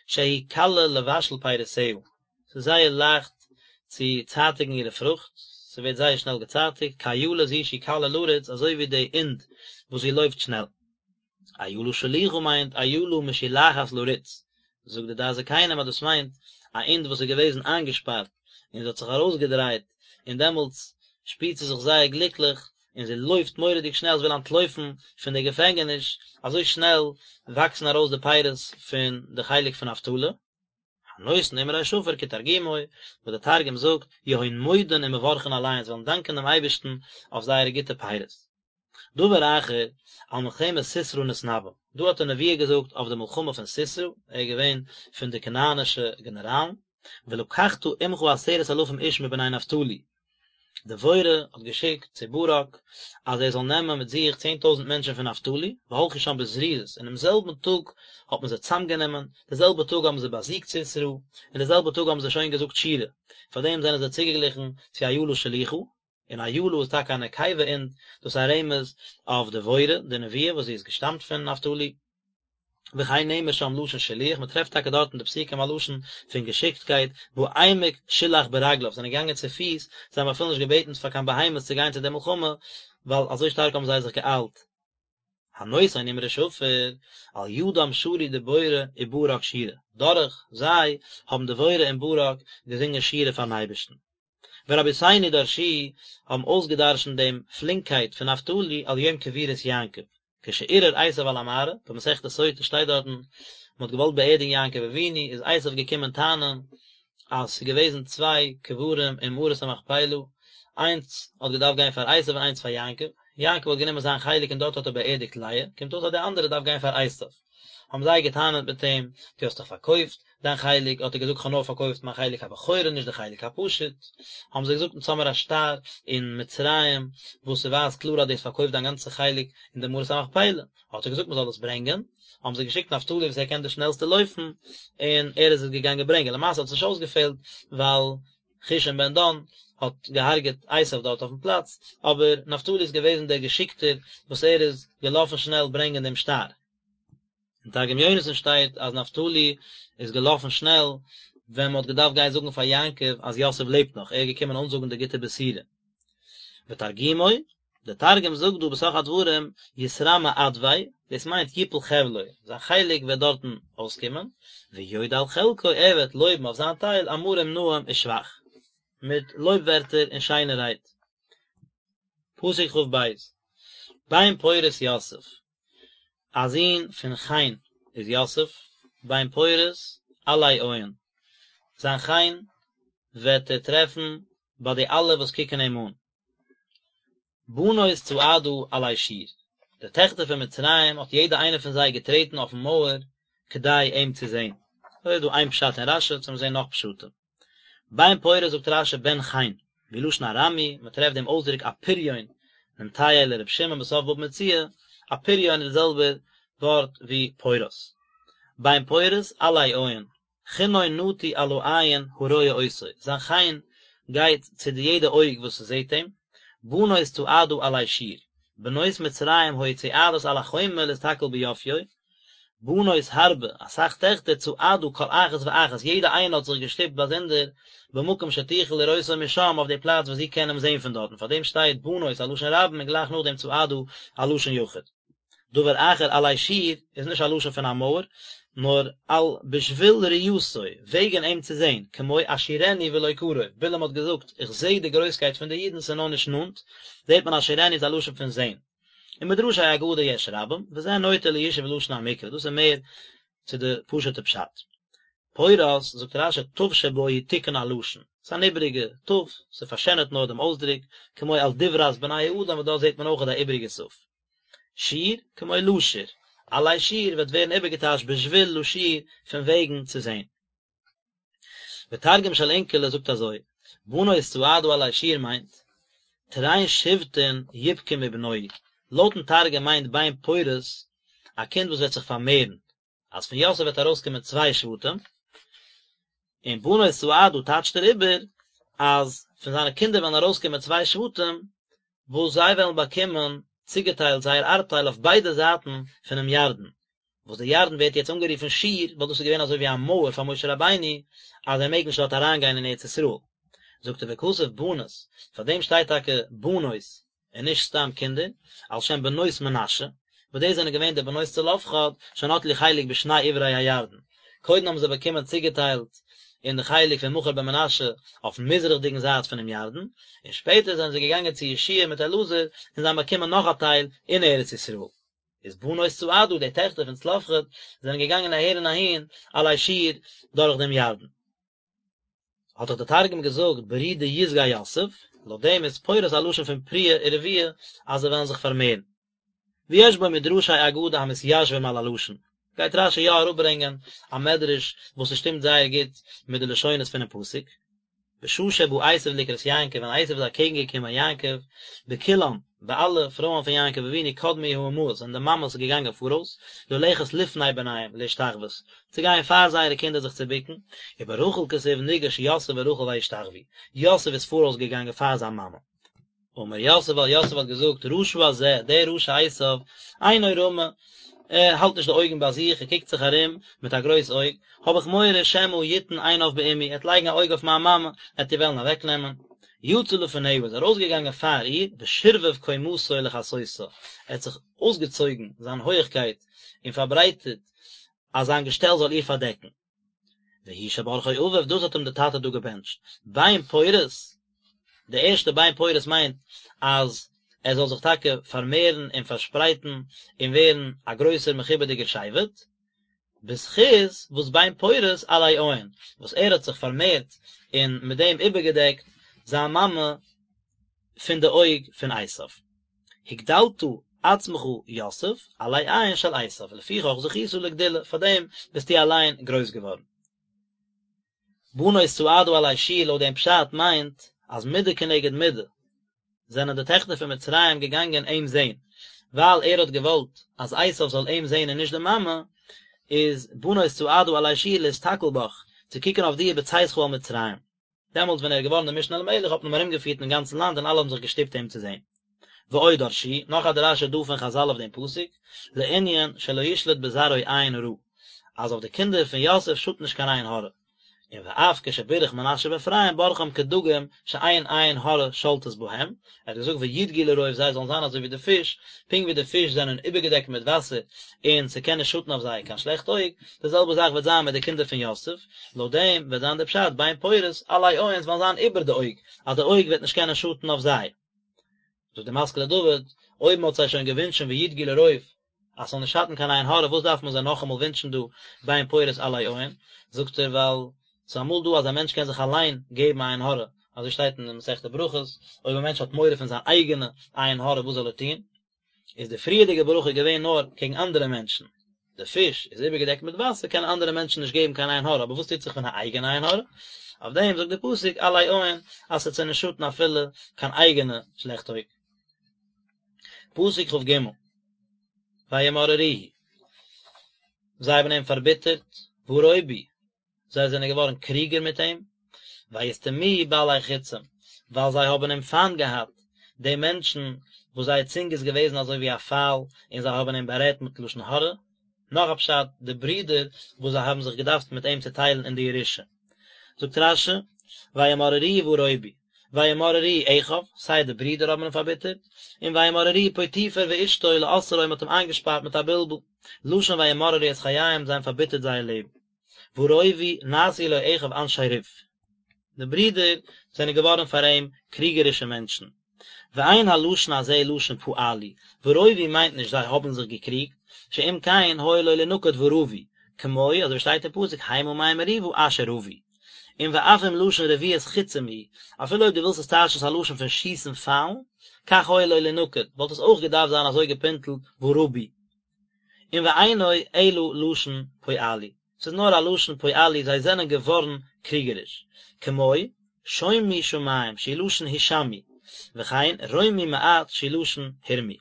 שהיא קלה לבשל פירותיה, ס'איז זייער לייכט צו צייטיגן אירע פרוכט, ס'ווערט זייער שנעל געצייטיגט, כאילה זו שהיא קלה לרוץ, אזוי ווי די אינד וואס זי לויפט שנעל. אילה שלוחה מיינט אילה משולחת לרוץ, זאגט די דעת זקנים אז דאס מיינט א אינד וואס איז געוועזן איינגעשפארט און זי האט זיך ארויסגעדרייט און דעמאלטס שפירט זי זיך זייער גליקליך און זי לויפט מורא'דיג שנעל זי וויל אנטלויפן פון די געפענגעניש, אזוי שנעל וואקסן ארויס די פירות פון די חלק פון נפתלי. הנותן אמרי שפר כתרגומו, וואס די תרגום זאגט, יהון מודין ומברכין עליהון, זיי וועלן דאנקען דעם אייבערשטן אויף זייערע גוטע פירות. דבר אחר, על מלחמת סיסרא נתנבא, דא האט ער נבואה געזאגט אויף די מלחמה פון סיסרא, ער איז געווען פון די כנענישע גענעראלן, ולקחת עמך עשרת אלפים איש מבני נפתלי. דבורה האט געשיקט צו ברק אז ער זאל נעמען מיט זיך 10,000 מענטשן פון נפתלי, והלכו שם בזריזות, אינעם זעלבן טאג האט מען זיי צאמגענומען, די זעלבע טאג האבן זיי באזיגט סיסרא, און די זעלבע טאג האבן זיי שוין געזאגט שירה, פארדעם זענען זיי צוגעגליכן צו אילה שלוחה, און אילה איז טאקע א נקבה אונט, דאס איז א רמז אויף דבורה די נביאה וואס זי איז געשטאמט פון נפתלי. וכן נאמר שם לשון שילוח, מען טרעפט טאקע דארט אין די פסוקים א לשון פון געשיקטקייט, בעמק שילח ברגליו, זיי זענען געגאנגען צו פיס, זיי האבן אפילו נישט געבעטן פאר קיין בהמות צו גיין צו די מלחמה, ווייל אזוי שטארק האבן זיי זיך געאיילט. הנותן אמרי שפר, על ידם שרו דבורה וברק שירה, דורך זיי האבן דבורה און ברק געזונגען שירה פארן אייבערשטן. ורבותינו דרשו האבן אויסגעדרשנט דעם פלינקייט פון נפתלי על יום קבורת יעקב, כשערער עשיו על המערה, במסכת סוטה שטייט דארטן, מען האט געוואלט באערדיגן יעקב אבינו, איז עשיו געקומען טענה'ן אז ס'איז געוועזן צוויי קברים אין מערת המכפלה, איינס האט געדארפט גיין פאר עשיו און איינס פאר יעקב, יעקב האט גענומען זיין חלק און דארט האט ער באערדיגט לאה, קומט אויס אז די אנדערע דארף גיין פאר עשיו. האבן זיי געטענה'ט מיט אים, דו האסט דאך פארקויפט דיין חלק, האט ער געזאגט כ'האב נאר פארקויפט מיין חלק הבכורה נישט די חלק הפשוט, האבן זיי געזאגט אונז האמיר א שטר אין מצרים וואס ס'ווייזט קלאר אז דו האסט פארקויפט דיין גאנצע חלק אין די מערת המכפלה, האט ער געזאגט מ'זאל עס ברענגען, האבן זיי געשיקט נפתלי וואס ער קען די שנעלסטע לויפן, און ער איז עס געגאנגען ברענגען, למעשה האט עס נישט אויסגעפעלט ווייל חושים בן דן האט געהארגעט עשיו דארט אויפן פלאץ, אבער נפתלי איז געוועזן דער געשיקטער וואס ער איז געלאפן שנעל ברענגען דעם שטר. אין תרגום יונתן שטייט אז נפתלי איז געלאפן שנעל ווען מען האט געדארפט גיין זאגן פאר יעקב אז יוסף לעבט נאך, ער איז געקומען אנזאגן די גוטע בשורה. ותרגומו, דער תרגום זאגט דא בתוך הדברים יתרמי עדביה, דאס מיינט יפול חבלו, זיין חלק וועט דארטן אויסקומען, ויודה על חלקו, ער וועט לויבן אויף זיין טייל, אמרים נאים ושבח, מיט לויב ווערטער און שיינע רייד. פסוק כ"ב, בן פורת יוסף, א זון פון חן איז יוסף, בן פורת עלי עין, זיין חן וועט ער טרעפן ביי די אלע וואס קוקן אים אן. בנות צעדה עלי שור, די טעכטער פון מצרים האט יעדע איינע פון זיי געטרעטן אויפן מויער כדי אים צו זען. אזוי איז דא איין פשט אין רש"י, צו מיר זען נאך פשטים. בן פורת זאגט רש"י בן חן, והוא לשון ארמי, מען טרעפט דעם אויסדרוק אפריון, נמטייה לר' שמעון בסוף בבא מציעא, אפריון איז די זעלבע ווארט ווי פורת. בן פורת עלי עין, חנו נטוי על העין הרואה אותו, זיין חן גייט צו די יעדע אויג וואס זעט אים, בנות צעדה עלי שור, בנות מצרים היו צועדות על החומה להסתכל ביופיו, בנות הרבה, אסאך טעכטער, צעדה כל אחת ואחת, יעדע איינע האט זיך געשטופט באזונדער, במקום שתוכל לראותו משם, אויף די פלאץ וואס זי קען אים זען פון דארטן, פארדעם שטייט בנות א לשון רבים און גלייך נאכדעם צעדה א לשון יחיד. דבר אחר עלי שור איז נישט א לשון פון א מויער, נאר על בשביל ראייתו, וועגן אים צו זען, כמו אשורנו ולא קרוב, בלעם האט געזאגט, איך זע די גרויסקייט פון די אידן, ס'איז נאר נישט נאנט, זעט מען אשורנו איז א לשון פון זען. ומדרשי אגדה יש רבים, וזה נוטה לישוב לשון המקרא, דאס איז מער צו די פשוט'ע פשט. פורת, זאגט רש"י, תיו שבו היא תיקון הלשון, ס'איז אן איבעריגע תיו, ס'פארשענערט נאר דעם אויסדרוק, כמו על דברת בני האדם וואס דארט זעט מען אויך א איבעריגע תיו. שור, כמו לשור, עלי שור וועט ווערן איבערגעטייטשט בשביל לשור פון וועגן צו זען. ותרגום של אונקלוס זאגט אזוי, בנות צעדה עלי שור מיינט, תרין שבטין יפקון מבנוהי, לויטן תרגום מיינט בן פורת א קינד וואס וועט זיך פארמערן, אז פון יוסף וועט ארויסקומען צוויי שבטים, און בנות צעדה טייטשט ער איבער אז פון זיינע קינדער וועלן ארויסקומען צוויי שבטים, וואס זיי וועלן באקומען צוגעטיילט זייער ארבטייל אויף ביידע זייטן פונעם ירדן, וואס דער ירדן ווערט יעצט אנגערופן שור, ווייל דאס איז געווען אזוי ווי א מויער פאר משה רבינו אז ער מעג נישט דארט אריינגיין אין ארץ ישראל. זאגט ער וכתב בנות, פאר דעם שטייט טאקע בנות און נישט סתם קינדער, על שם בנות מנשה, וואס דאס זענען געווען די בנות צלפחד, שנטלו חלק בשני עברי הירדן. קודם האבן זיי באקומען צוגעטיילט אין די חלק פון מכיר בן מנשה אויפן מזרח'דיגן זייט פונעם ירדן, און שפעטער זענען זיי געגאנגען צו יהושע מיט אלעזר און זיי האבן באקומען נאך א טייל אין ארץ ישראל. איז בנות צעדה, די טעכטער פון צלפחד, זענען געגאנגען אהער און אהין עלי שור דורך דעם ירדן. האט דאך דער תרגום געזאגט ברי דיסגי יוסף, לויט דעם איז פורת א לשון פון פריה ורביה אז זיי וועלן זיך פארמערן. ויש בו מדרשי אגדה המתיישבים על הלשון, גייט רש"י יא אראפברענגען א מדרש וואס עס שטימט זייער גוט מיט די לשונות פונעם פסוק. בשעה שבא עשיו לקראת יעקב, ווען עשיו איז אקעגן געקומען יעקב, בכולן, ביי אלע פרויען פון יעקב אבינו קדמו האמהות זענען די מאמעס געגאנגען פאראויס, ללכת לפני בניהם להשתחוות, צו גיין פאר זייערע קינדער זיך צו בוקן, וברחל כתיב ניגש יוסף ורחל וישתחוו, יוסף איז פאראויס געגאנגען פאר זיין מאמע. אמר יוסף ווייל יוסף האט געזאגט, רשע הזה, דער רשע עשיו, עינו רמה, ער האלט נישט די אויגן ביי זיך, ער קוקט זיך ארום מיט א גרויס אויג, האב איך מורא שמא יתן עיניו באמי, ער וועט לייגן א אויג אויף מיין מאמע, ער וועט איר וועלן אוועקנעמען. יצא לפניה איז ארויסגעגאנגען פאר איר, ושרבב קומתו לכסותה, ער האט זיך אויסגעצויגן זיין הויעכקייט און פארברייטערט אז זיין געשטעל זאל איר פארדעקן. והוא שברכו אביו, דאס האט אים דער טאטע דא געבענטשט, בן פורת, די ערשטע בן פורת מיינט אז ער זאל זיך טאקע פארמערן און פארשפרייטן און ווערן א גרויסער מכובד'יגער שבט, בזכות וואס בן פורת עלי עין, וואס ער האט זיך פארמערט און מיט דעם איבערגעדעקט זיין מאמע פון די אויג פון עשיו. הגדלת עצמך יוסף עלי עין של עשיו, לפיכך זכית לגדולה, פאר דעם ביסטו אליין גרויס געווארן. בנות צעדה עלי שור לויט דעם פשט מיינט אז מידה כנגד מידה זענען די טעכטער פון מצרים געגאנגען אים זען, ווייל ער האט געוואלט אז עשיו זאל אים זען און נישט די מאמע, איז בנות צעדה עלי שור להסתכל בך, צו קוקן אויף דיר בצאתך אל מצרים. דעמאלטס ווען ער איז געווארן דער משנה למלך האט מען אים ארומגעפירט אין גאנצן לאנד און אלע האבן זיך געשטופט אים צו זען. ועוד דרשו, נאך א דרשה דא פון חזל אויף דעם פסוק, לענין שלא ישלוט בזרעו עין רעה, אז אויף די קינדער פון יוסף שאדט נישט קיין עין הרע, און ואף כשבירך מנשה ואפרים ברכם כדגים שאין עין הרע שולטת בהם, ער האט געזאגט וידגו לרוב זיי זאלן זיין אזוי ווי די פיש, פונקט ווי די פיש זענען איבערגעדעקט מיט וואסער און ס'קען נישט שאטן אויף זיי קיין שלעכט אויג, די זעלבע זאך וועט זיין מיט די קינדער פון יוסף, לויט דעם וועט זיין דער פשט בן פורת עלי עין וועלן זיין איבער די אויג, אז די אויג וועט נישט קענען שאטן אויף זיי. זאגט די משכיל לדוד, אויב מען האט זיי שוין געווינטשן וידגו לרוב אז ס'זאל נישט שאטן קיין עין הרע וואס דארף מען זיי נאכאמאל ווינטשן דא בן פורת עלי עין, זאגט ער ווייל ס'איז אמאל דא אז א מענטש קען זיך אליין געבן א עין הרע, אזוי שטייט אין מסכת ברכות, אויב א מענטש האט מורא פון זיין אייגענע עין הרע וואס זאל ער טון? איז די פריערדיגע ברכה געווען נאר קעגן אנדערע מענטשן, די פיש איז איבערגעדעקט מיט וואסער קענען אנדערע מענטשן נישט געבן קיין עין הרע, אבער וואס טוט זיך פון א אייגענע עין הרע? אויף דעם זאגט די פסוק עלי עין אז ס'וועט זיי נישט שאטן אפילו קיין אייגענע שלעכט אויג. פסוק כג, וימררוהו, זיי האבן אים פארביטערט, והרובו, זיי זענען געווארן קריגער מיט אים, וישטמוהו בעלי חצים, ווייל זיי האבן אים פיינט געהאט, די מענטשן וואס זייער צונג איז געוועזן אזוי ווי א פייל, און זיי האבן אים בארעדט מיט לשון הרע. נאך א פשט, די ברידער וואס זיי האבן זיך געדארפט מיט אים צוטיילן אין די ירושה. זאגט רש"י, וימררוהו והרובו, וימררוהו אחיו, סיי די ברידער האבן אים פארביטערט, און וימררוהו פוטיפר ואשתו לאסרו מ'האט אים איינגעשפארט מיט א בלבול, לשון וימררו את חייהם זיי האבן פארביטערט זייער לעבן. והרובו נעשו לו אחיו אנשי ריב. די ברידער זענען געווארן פאר אים קריגערישע מענטשן. ואין הלשון הזה לשון פעלו, והרובו מיינט נישט זיי האבן זיך געקריגט, שאם כן היה לו לינקד ורבו, כמו אזוי ווי שטייט אין פסוק המה מי מריבה אשר רבו. און ואף אם לשון רביית חצים הוא, אפילו אויב דו ווילסט עס טייטשן ס'איז א לשון פון שיסן פיילן, כך היה לו לינקד, וואלט עס אויך געדארפט זיין אזוי געפינטלט ורבו. און ואינו אלא לשון פעלו, ס'איז נאר א לשון פעלו זיי זענען געווארן קריגעריש, כמו, שומו שמים שהוא לשון הישמעו, וכן רמו מעט שהוא לשון הורמו,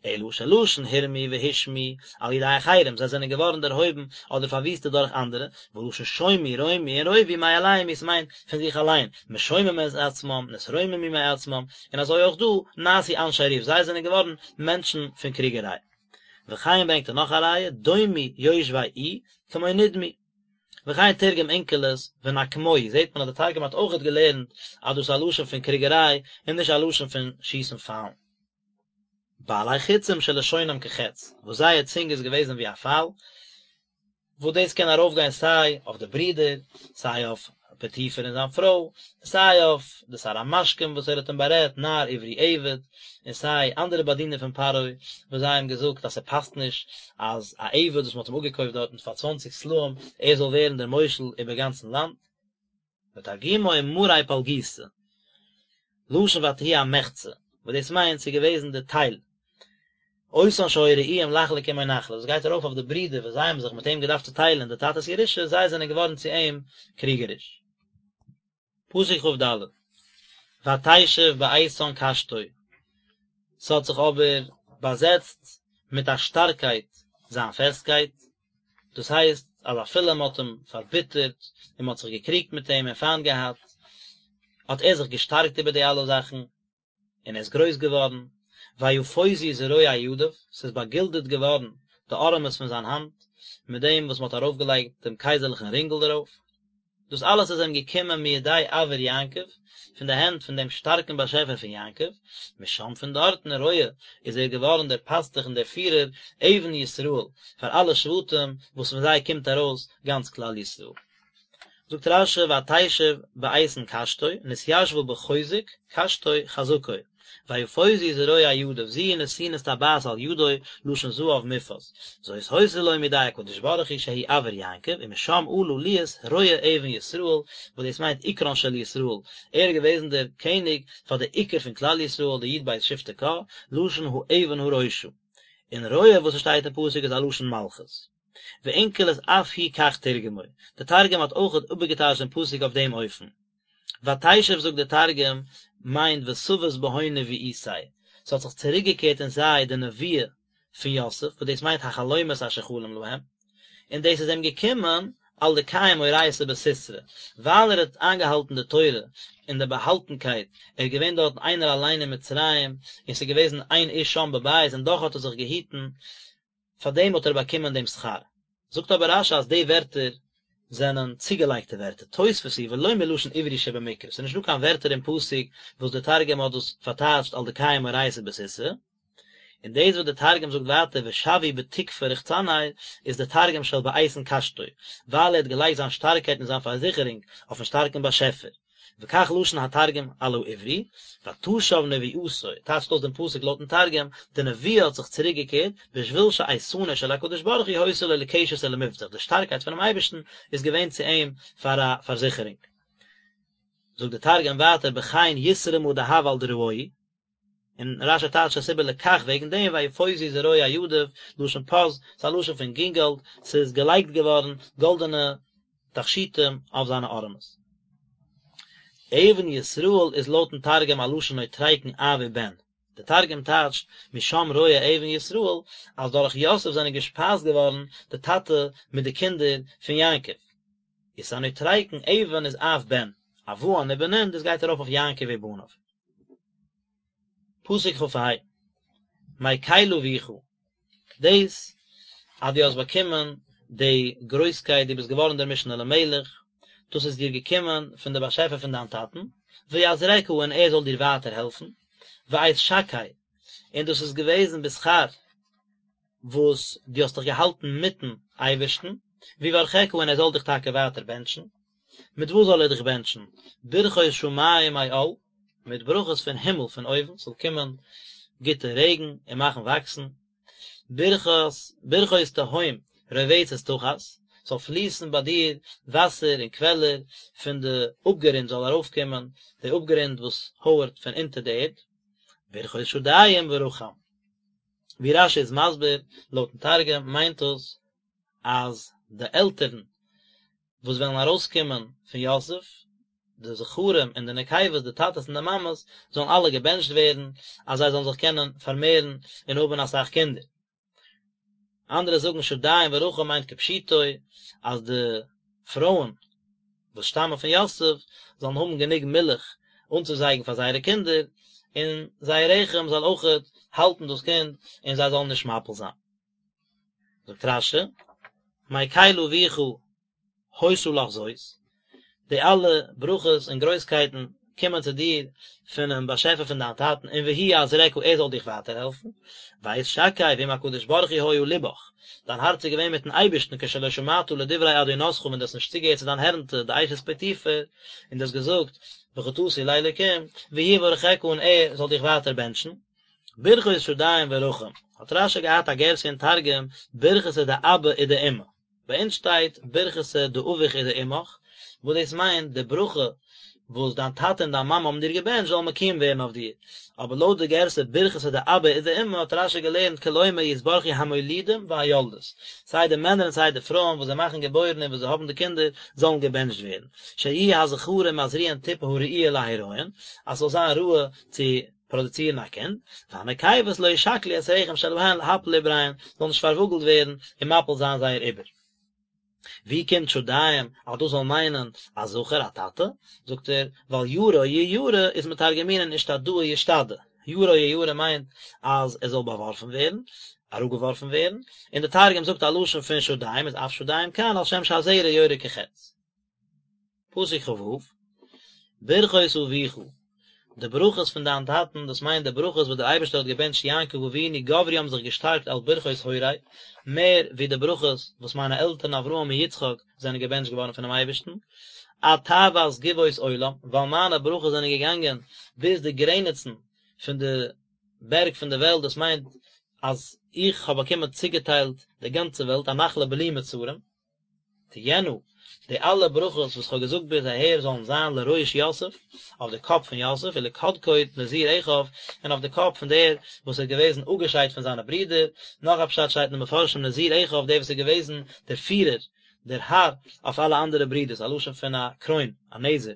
אלא שלשון הורמו והושמעו על ידי אחרים, זיי זענען געווארן דערהויבן אדער פארוויסטעט דורך אנדערע, ולשון שומו רמו און רובו מאליהם הוא ס'מיינט פון זיך אליין, משוממים את עצמם, נתרוממו מעצמם, און אזוי אויך דא, נעשו אנשי ריב, זיי זענען געווארן מענטשן פון קריגעריי. וכן ברענגט ער נאך א ראיה, דומו יושבי עי, כמו נדמו. וכן תרגם אונקלוס ונקמוהי, זעט מען אז די תרגום האט אויכעט געלערנט אז דאס איז א לשון פון קריגעריי און נישט א לשון פון שיסן פיילן. בעלי חצים שלשונם כחץ, וואס זייער צונג איז געוועזן ווי א פייל, וואס דאס קען ארויפגיין סיי אויף די ברידער, סיי אויף פוטיפר און זיין פרוי, סיי אויף די שר המשקים וואס ער האט אים בארעדט, נער עברי עבד, און סיי אנדערע באדינער פון פרעה, וואס זיי האבן געזאגט אז ס'פאסט נישט אז א עבד וואס מ'האט אים אפגעקויפט דארטן פאר צוואנציג סלעים, ער זאל ווערן דער מושל איבער גאנצן לאנד. ותרגומו מארי פלגיתא, לשון ותהי המחצה, וואס דאס מיינט ס'איז געוועזן די טייל, אותן שהיו ראויים לחלוק עמו נחלה, דאס גייט ארויף אויף די ברידער וואס זיי האבן זיך מיט אים געדארפט צוטיילען די טאטע'ס ירושה, זיי זענען געווארן צו אים קריגעריש. פסוק כ"ד, ותשב באיתן קשתו, ס'האט זיך אבער באזעצט מיט א שטארקייט זיין פעסטקייט, דאס הייסט אז אפילו מ'האט אים פארביטערט און מ'האט זיך געקריגט מיט אים און פיינט געהאט, האט ער זיך געשטארקט איבער די אלע זאכן, און ער איז גרויס געווארן, ויפוזו זרועי ידיו, ס'איז באגילדעט געווארן די ארעמעס פון זיין האנט, מיט דעם וואס מ'האט ארויפגעלייגט דעם קייזערליכן רינגל דערויף. דאס אלעס איז אים געקומען מידי אביר יעקב, פון די הענט פון דעם שטארקן באשעפער פון יעקב, משם פון דארטן רועה איז ער געווארן דער פאסטוך און דער פירער, אבן ישראל, פאר אלע שבטים וואס פון זיי קומט ארויס גאנץ כלל ישראל. זאגט רש"י ותשב באיתן קשתו, נתיישבה בחוזק, קשתו חזקו, ויפוזו זרועי ידיו, זו היא נתינת טבעת על ידו, לשון זהב מופז, זאת היתה לו מידי הקדוש ברוך הוא שהוא אביר יעקב, ומשם עלה להיות רועה אבן ישראל, וואס דאס מיינט עיקרן של ישראל, ער איז געוועזן דער קעניג פאר די עיקר פון כלל ישראל די י"ב שבטי קה, לשון האבן הראשה. און רועה וואס עס שטייט אין פסוק איז א לשון מלכות. ואונקלוס אף הוא כך תרגמו, די תרגום האט אויכעט איבערגעטייטשט דעם פסוק אויף דעם אופן. ותשב זאגט דער תרגום מיינט ותבת בהון נבואתיה, ס'האט זיך צוריקגעקערט אין זיי די נבואה פון יוסף, וואס דאס מיינט החלומות אשר חלם להם, און דאס איז אים געקומען על דקיים אורייתא בסתרא, ווייל ער האט איינגעהאלטן די תורה אין די באהאלטנקייט, ער איז געווען דארטן איינער אליין אין מצרים, און ס'איז געוועזן אין איש שם בבית און דאך האט ער זיך געהיטן, פאר דעם האט ער באקומען דעם שכר. זאגט אבער רש"י אז די ווערטער זענען צוגעלייגטע ווערטער, תוספת היא ולא מלשון עברי שבמקרא, ס'איז נישטא קיין ווערטער אין פסוק וואס דער תרגום האט דאס פארטייטשט על דקיים אורייתא בסתרא, און דאס וואס דער תרגום זאגט ווייטער ושוי בתוקפא רוחצניה איז דער תרגום של באיתן קשתו, ווייל ער האט געלייגט זיין שטארקייט און זיין פארזיכערונג אויפן שטארקן באשעפער. וכך לשון התרגום על העברי, ותשב נבואתו, טייטשט אויס דעם פסוק לויטן תרגום, די נבואה האט זיך צוריק געקערט, בשביל שאיתנו של הקדוש ברוך הוא היתה לו לקשת ולמבטח, די שטארקייט פונעם אייבערשטן איז געווען צו אים פאר א פארזיכערונג. זאגט דער תרגום ווייטער בכן יתרמא דהב על דרעוהי, און רש"י טייטשט עס איבער לכך וועגן דעם ויפוזו זרועי ידיו, לשון פז, ס'איז א לשון פון גינגאלד, ס'איז געלייגט געווארן גאלדענע תכשיטים אויף זיינע ארעמעס. אבן ישראל איז לויטן תרגום א לשון נוטריקון אב ובן, דער תרגום טייטשט משם רועה אבן ישראל אז דורך יוסף זענען געשפייזט געווארן די טאטע מיט די קינדער פון יעקב. איז א נוטריקון אבן איז אב בן, אבהן ובנין דאס גייט ארויף אויף יעקב ובניו. פסוק כ"ה, מקל אביך, דאס אז דו האסט באקומען די גרויסקייט, דו ביסט געווארן דער משנה למלך, דאס איז דיר געקומען פון דער באשעפער פון דיין טאטן, ויעזרך און ער זאל דיר ווייטער העלפן, ואת שקי, און דאס איז געוועזן בשכר וואס דו האסט דיך געהאלטן מיטן אייבערשטן, ויברכך און ער זאל דיך טאקע ווייטער בענטשן. מיט וואס זאל ער דיך בענטשן? ברכות שמים מעל, מיט ברכות פון הימל פון אויבן, ס'זאל קומען גוטע רעגן און מאכן וואקסן, ברכות, ברכות תהום רובצת תחת, ס'זאל פליסן ביי דיר וואסער און קוועלער פון די אפגערונט זאל ארויפקומען, די אפגערונט וואס הויערט פון אונטער די ערד, ברכות שדיים ורחם. ווי רש"י איז מסביר, לויטן תרגום מיינט דאס אז די עלטערן וואס וועלן ארויסקומען פון יוסף, די זכרים און די נקבות, די טאטעס און די מאמעס, זאלן אלע געבענטשט ווערן, אז זיי זאלן זיך קענען פארמערן און האבן אסאך קינדער. אנדערע זאגן שדיים ורחם מיינט כפשוטו, אז די פרויען וואס שטאמען פון יוסף זאלן האבן גענוג מילך אנצוזייגן פאר זייערע קינדער, און זייער רחם זאל אויכעט האלטן דאס קינד און זיי זאלן נישט מפיל זיין. זאגט רש"י, מקל אביך היתה לך זאת, די אלע ברכות און גרויסקייטן קומען צו דיר פונעם באשעפער פון דיין טאטן און והוא יעזרך ער זאל דיך ווייטער העלפן, ואת שקי ועם הקדוש ברוך הוא היה לבך, דיין הארץ איז געווען מיטן אייבערשטן כשלא שמעת לדברי אדונתך ווען דו האסט נישט צוגעהערט צו דיין הערנטע די אשת פוטיפר, און דו האסט געזאגט וחטאתי לאלוקים, והוא יברכך און ער זאל דיך ווייטער בענטשן. ברכות שדיים ורחם, האט רש"י געהאט א גירסא אין תרגום ברכתא דאבא ודאמא, ביי אונז שטייט ברכתא דאבוך ודאמך, וואס דאס מיינט די ברכה. וואס דיין טאטע און דיין מאמע האבן דיר געבענטשט זאלן מקוים ווערן אויף דיר, אבער לויט די גירסא ברכתא דאבא ודאמא האט רש"י געלערנט כלומר יתברכו המולידים והיולדות, סיי די מענער און סיי די פרויען וואס זיי מאכן געבוירן און וואס זיי האבן די קינדער זאלן געבענטשט ווערן, שיהיו הזכרים מזריעין טיפה הראויה להריון, אז ס'זאל זיין ראוי צו פראדוצירן א קינד, והנקבות לא ישכלו את רחם שלהן להפיל עובריהן, זאל נישט פארוואגלט ווערן און מפיל זיין זייער עובר. ווי קומט שדיים אז דאס זאל מיינען א זכר א טאטע? זאגט ער, ווייל ירה יירה איז מתרגמינן אשתדאה ישתדא, ירה יירה מיינט אז ער זאל באווארפן ווערן, אראפגעווארפן ווערן, און די תרגום זאגט א לשון פון שדיים איז אף שדיים כאן על שם שהזרע יורה כחץ. פסוק כ"ו, ברכות אביך, די ברכות פון דיין טאטן, דאס מיינט די ברכות וואס דער אייבערשטער האט געבענטשט יעקב אבינו גברו האבן זיך געשטארקט על ברכות הורי, מער ווי די ברכות וואס מיינע עלטערן אברהם און יצחק זענען געבענטשט געווארן פונעם אייבערשטן, עד תאוות גבעות עולם, ווייל מיינע ברכות זענען געגאנגען ביז די גרעניצן פון די בערג פון די וועלט, דאס מיינט אז איך האב באקומען צוגעטיילט די גאנצע וועלט, א נחלה בלי מצרים. תהיינה, די אלע ברכות וואס כ'האב געזאגט ביז אהער זאלן זיין לראש יוסף, אויף די קאפ פון יוסף, ולקדקוד נזיר אחיו, און אויף די קאפ פון דער וואס איז געוועזן אפגעשיידט פון זיינע ברידער, נאך א פשט שטייט אין די מפרשים נזיר אחיו דער וואס איז געוועזן דער פירער, דער האר, אויף אלע אנדערע ברידערס, א לשון פון א קרוין, א נזר.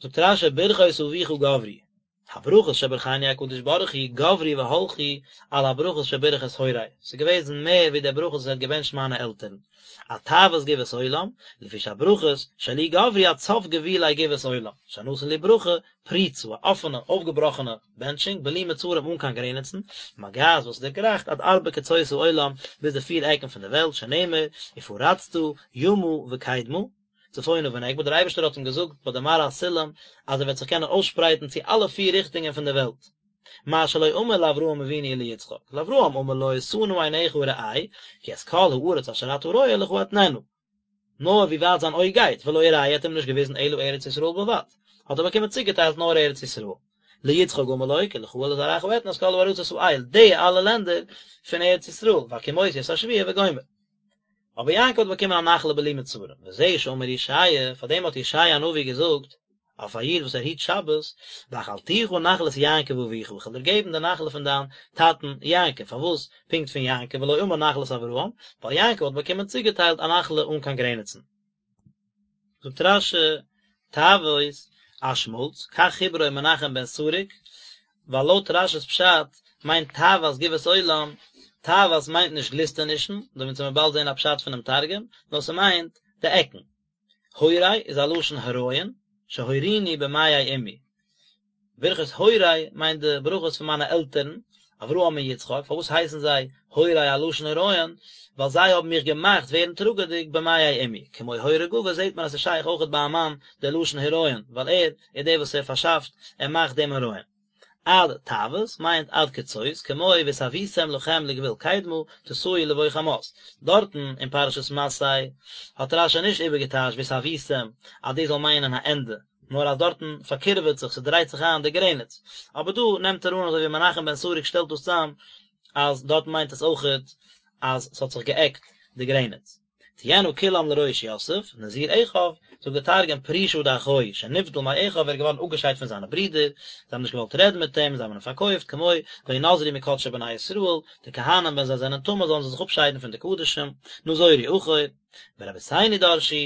זאגט רש"י ברכות אביך גברו, הברכות שברכני הקדוש ברוך הוא גברו והלכו על הברכות שבירך את הורי, ס'איז געוועזן מער ווי די ברכות וואס ער האט געבענטשט מיינע עלטערן, עד תאוות גבעות עולם, לפי שהברכות שלי גברו עד סוף גבולי גבעות עולם, שנתן לי ברכה פרוצה, א אפענע, אויפגעבראכענע, בענטשונג, בלי מצרים אן קיין גרעניצן, מגעת וואס דערגרייכט עד ארבע קצות העולם, ביז די פיר עקן פון די וועלט, שנאמר, ופרצת ימה וקדמה. צפונה ונגבה, דער אייבערשטער האט אים געזאגט ביי די מראה הסולם אז ער וועט זיך קענען אויסשפרייטן צו אלע פיר ריכטונגען פון דער וועלט, מה שלא אמר לאברהם אבינו וליצחק, לאברהם אמר לו שא נא עיניך וראה, כי את כל הארץ אשר אתה רואה לך אתננה, נאר ווי ווייט זיין אויג גייט, ולא הראהו האט אים נישט געוויזן אלא ארץ ישראל בלבד, האט ער באקומען צוגעטיילט נאר ארץ ישראל. ליצחק אמר לו כי לך ולזרעך אתן את כל הארצות האל, די אלע לענדער פון ארץ ישראל, והקימותי את השבועה וגומר. אבער יעקב האט באקומען א נחלה בלי מצרים, וזה שאמר ישעיה, פאר דעם האט ישעיה הנביא געזאגט, אויף א איד וואס ער היט שבת, והאכלתיך נחלת יעקב אביך, איך וועל דיר געבן די נחלה פון דיין טאטן יעקב, פארוואס פונקט פון יעקב ולא אמר נחלת אברהם, ווייל יעקב האט באקומען צוגעטיילט א נחלה אן קיין גרעניצן. זאגט רש"י, תאוות, א שמאלץ, כך חיברו מנחם בן סרוק, ווייל לויט רש"י'ס פשט מיינט תאוות גבעות עולם, תאוות מיינט נישט גליסטענישן, דא וועט מען באלד זען א פשט פונעם תרגום, נאר ס'מיינט די עקן. הורי איז א לשון הריון, שהוריני במעי אמי. ברכות הורי מיינט די ברכות פון מיינע עלטערן, אברהם און יצחק, פארוואס הייסן זיי הורי א לשון הריון? ווייל זיי האבן מיך געמאכט ווערן טראגעדיג במעי אמי, כמו הורה גבר זעט מען אז ס'איז שייך אויכעט ביי א מאן דער לשון הריון, ווייל ער איז דער וואס ער פארשאפט, ער מאכט דעם הריון. עד תאוות מיינט עד קצות, כמו והתאויתם לכם לגבול קדמה, תסעו לבוא חמת. דארטן אין פרשת מסעי האט רש"י נישט איבערגעטייטשט והתאויתם אז דאס זאל מיינען א ענדע, נאר אז דארטן פארקירעוועט זיך, ס'דרייט זיך איין די גרעניץ. אבער דא נעמט ער אן אזוי ווי מנחם בן סרוק שטעלט דאס צאם, אז דארטן מיינט עס אויכעט אז ס'האט זיך געעקט די גרעניץ. תהיינה כולם לראש יוסף, נזיר אחיו, זאגט דער תרגום פרישא דאחוהי, שנבדל מאחיו, ער איז געווארן אפגעשיידט פון זיינע ברידער, זיי האבן נישט געוואלט רעדן מיט אים, זיי האבן אים פארקויפט, כמו וינזרו מקדשי בני ישראל, די כהנים ווען זיי זענען טמא זאלן זיי זיך אפשיידן פון די קדשים, נזורו אחור. ורבותינו דרשו,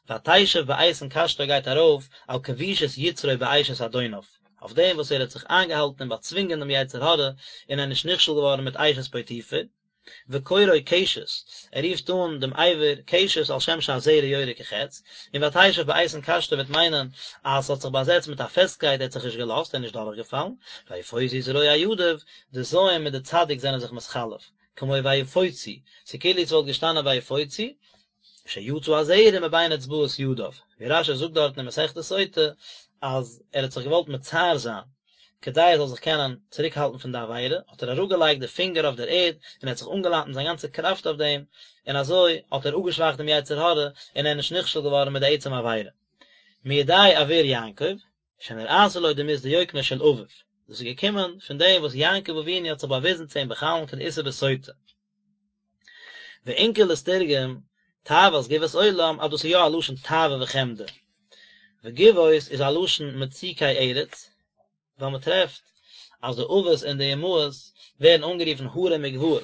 ותשב באיתן קשתו גייט ארויף על כבישת יצרו באשת אדוניו, אויף דעם וואס ער האט זיך איינגעהאלטן און באצווינגען דעם יצר הרע און ער איז נישט נכשל געווארן מיט אשת פוטיפר, וקוראו קשת, ער רופט אן דעם אבר קשת על שם שהזרע יורה כחץ, און ותשב באיתן קשתו וועט מיינען אז ס'האט זיך באזעצט מיט א פעסטקייט ער האט זיך נישט געלאזט ער איז נישט דורכגעפאלן, ויפוזו זרועי ידיו, די זיין מיט די צדיק זענען זיך מתחלף, כמו ויפוצו, ס'כאילו ס'וואלט געשטאנען ויפוצו, שיצא הזרע מבין אצבעות ידיו, ווי רש"י זאגט דארטן אין מסכת סוטה אז ער האט זיך געוואלט מצער זיין כדי ער זאל זיך קענען צוריק האלטן פון די עבירה, האט ער אראפגעלייגט די פינגער אויף דער ערד און ער האט זיך אנגעלאנט מיט זיין גאנצע קראפט אויף דעם, און אזוי האט ער אפגעשוואכט דעם יצר הרע און ער איז נישט נכשל געווארן מיט די עצם עבירה. מידי אביר יעקב, שנראתה לו דמות דיוקנו של אביו, דאס איז געקומען פון דעם וואס יעקב אבינו האט זיך באוויזן צו אים בחלום כדאיתא בסוטה. ואונקלוס תרגם, תאוות גבעות עולם, אז דאס איז יא א לשון תאווה וחמדה. וגבעות איז א לשון מצוקי ארץ, ווייל מען טרעפט אז די אבות און די אמהות ווערן אנגערופן הרים וגבעות,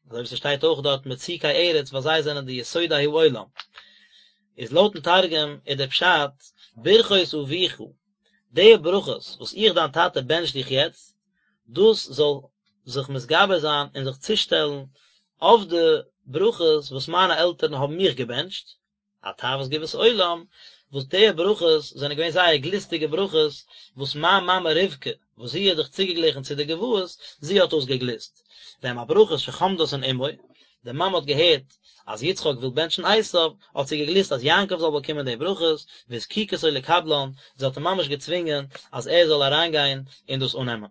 אזוי ווי ס'שטייט אויך דארט מצוקי ארץ ווייל זיי זענען די יסודי העולם. איז לויטן תרגום איז דער פשט ברכות אביך, די ברכות וואס איך דיין טאטע בענטש דיך יעצט, דאס זאל זיך מתגבר זיין און זיך צושטעלן אויף די ברכות וואס מיינע עלטערן האבן מיך געבענטשט, עד תאוות גבעות עולם, וואס די ברכות זענען געווען זייער גליסטיגע ברכות, וואס מיין מאמע רבקה, וואס זי האט זיך צוגעגליכן צו די גבעות, זי האט דאס געגליסט. והם הברכות שחמדתן אמו, די מאמע האט געהערט אז יצחק וויל בענטשן עשיו, האט זי געגליסט אז יעקב זאל באקומען די ברכות, והזקיקתו לקבלן, זי האט אים ממש געצווינגען אז ער זאל אריינגיין און דאס אננעמען.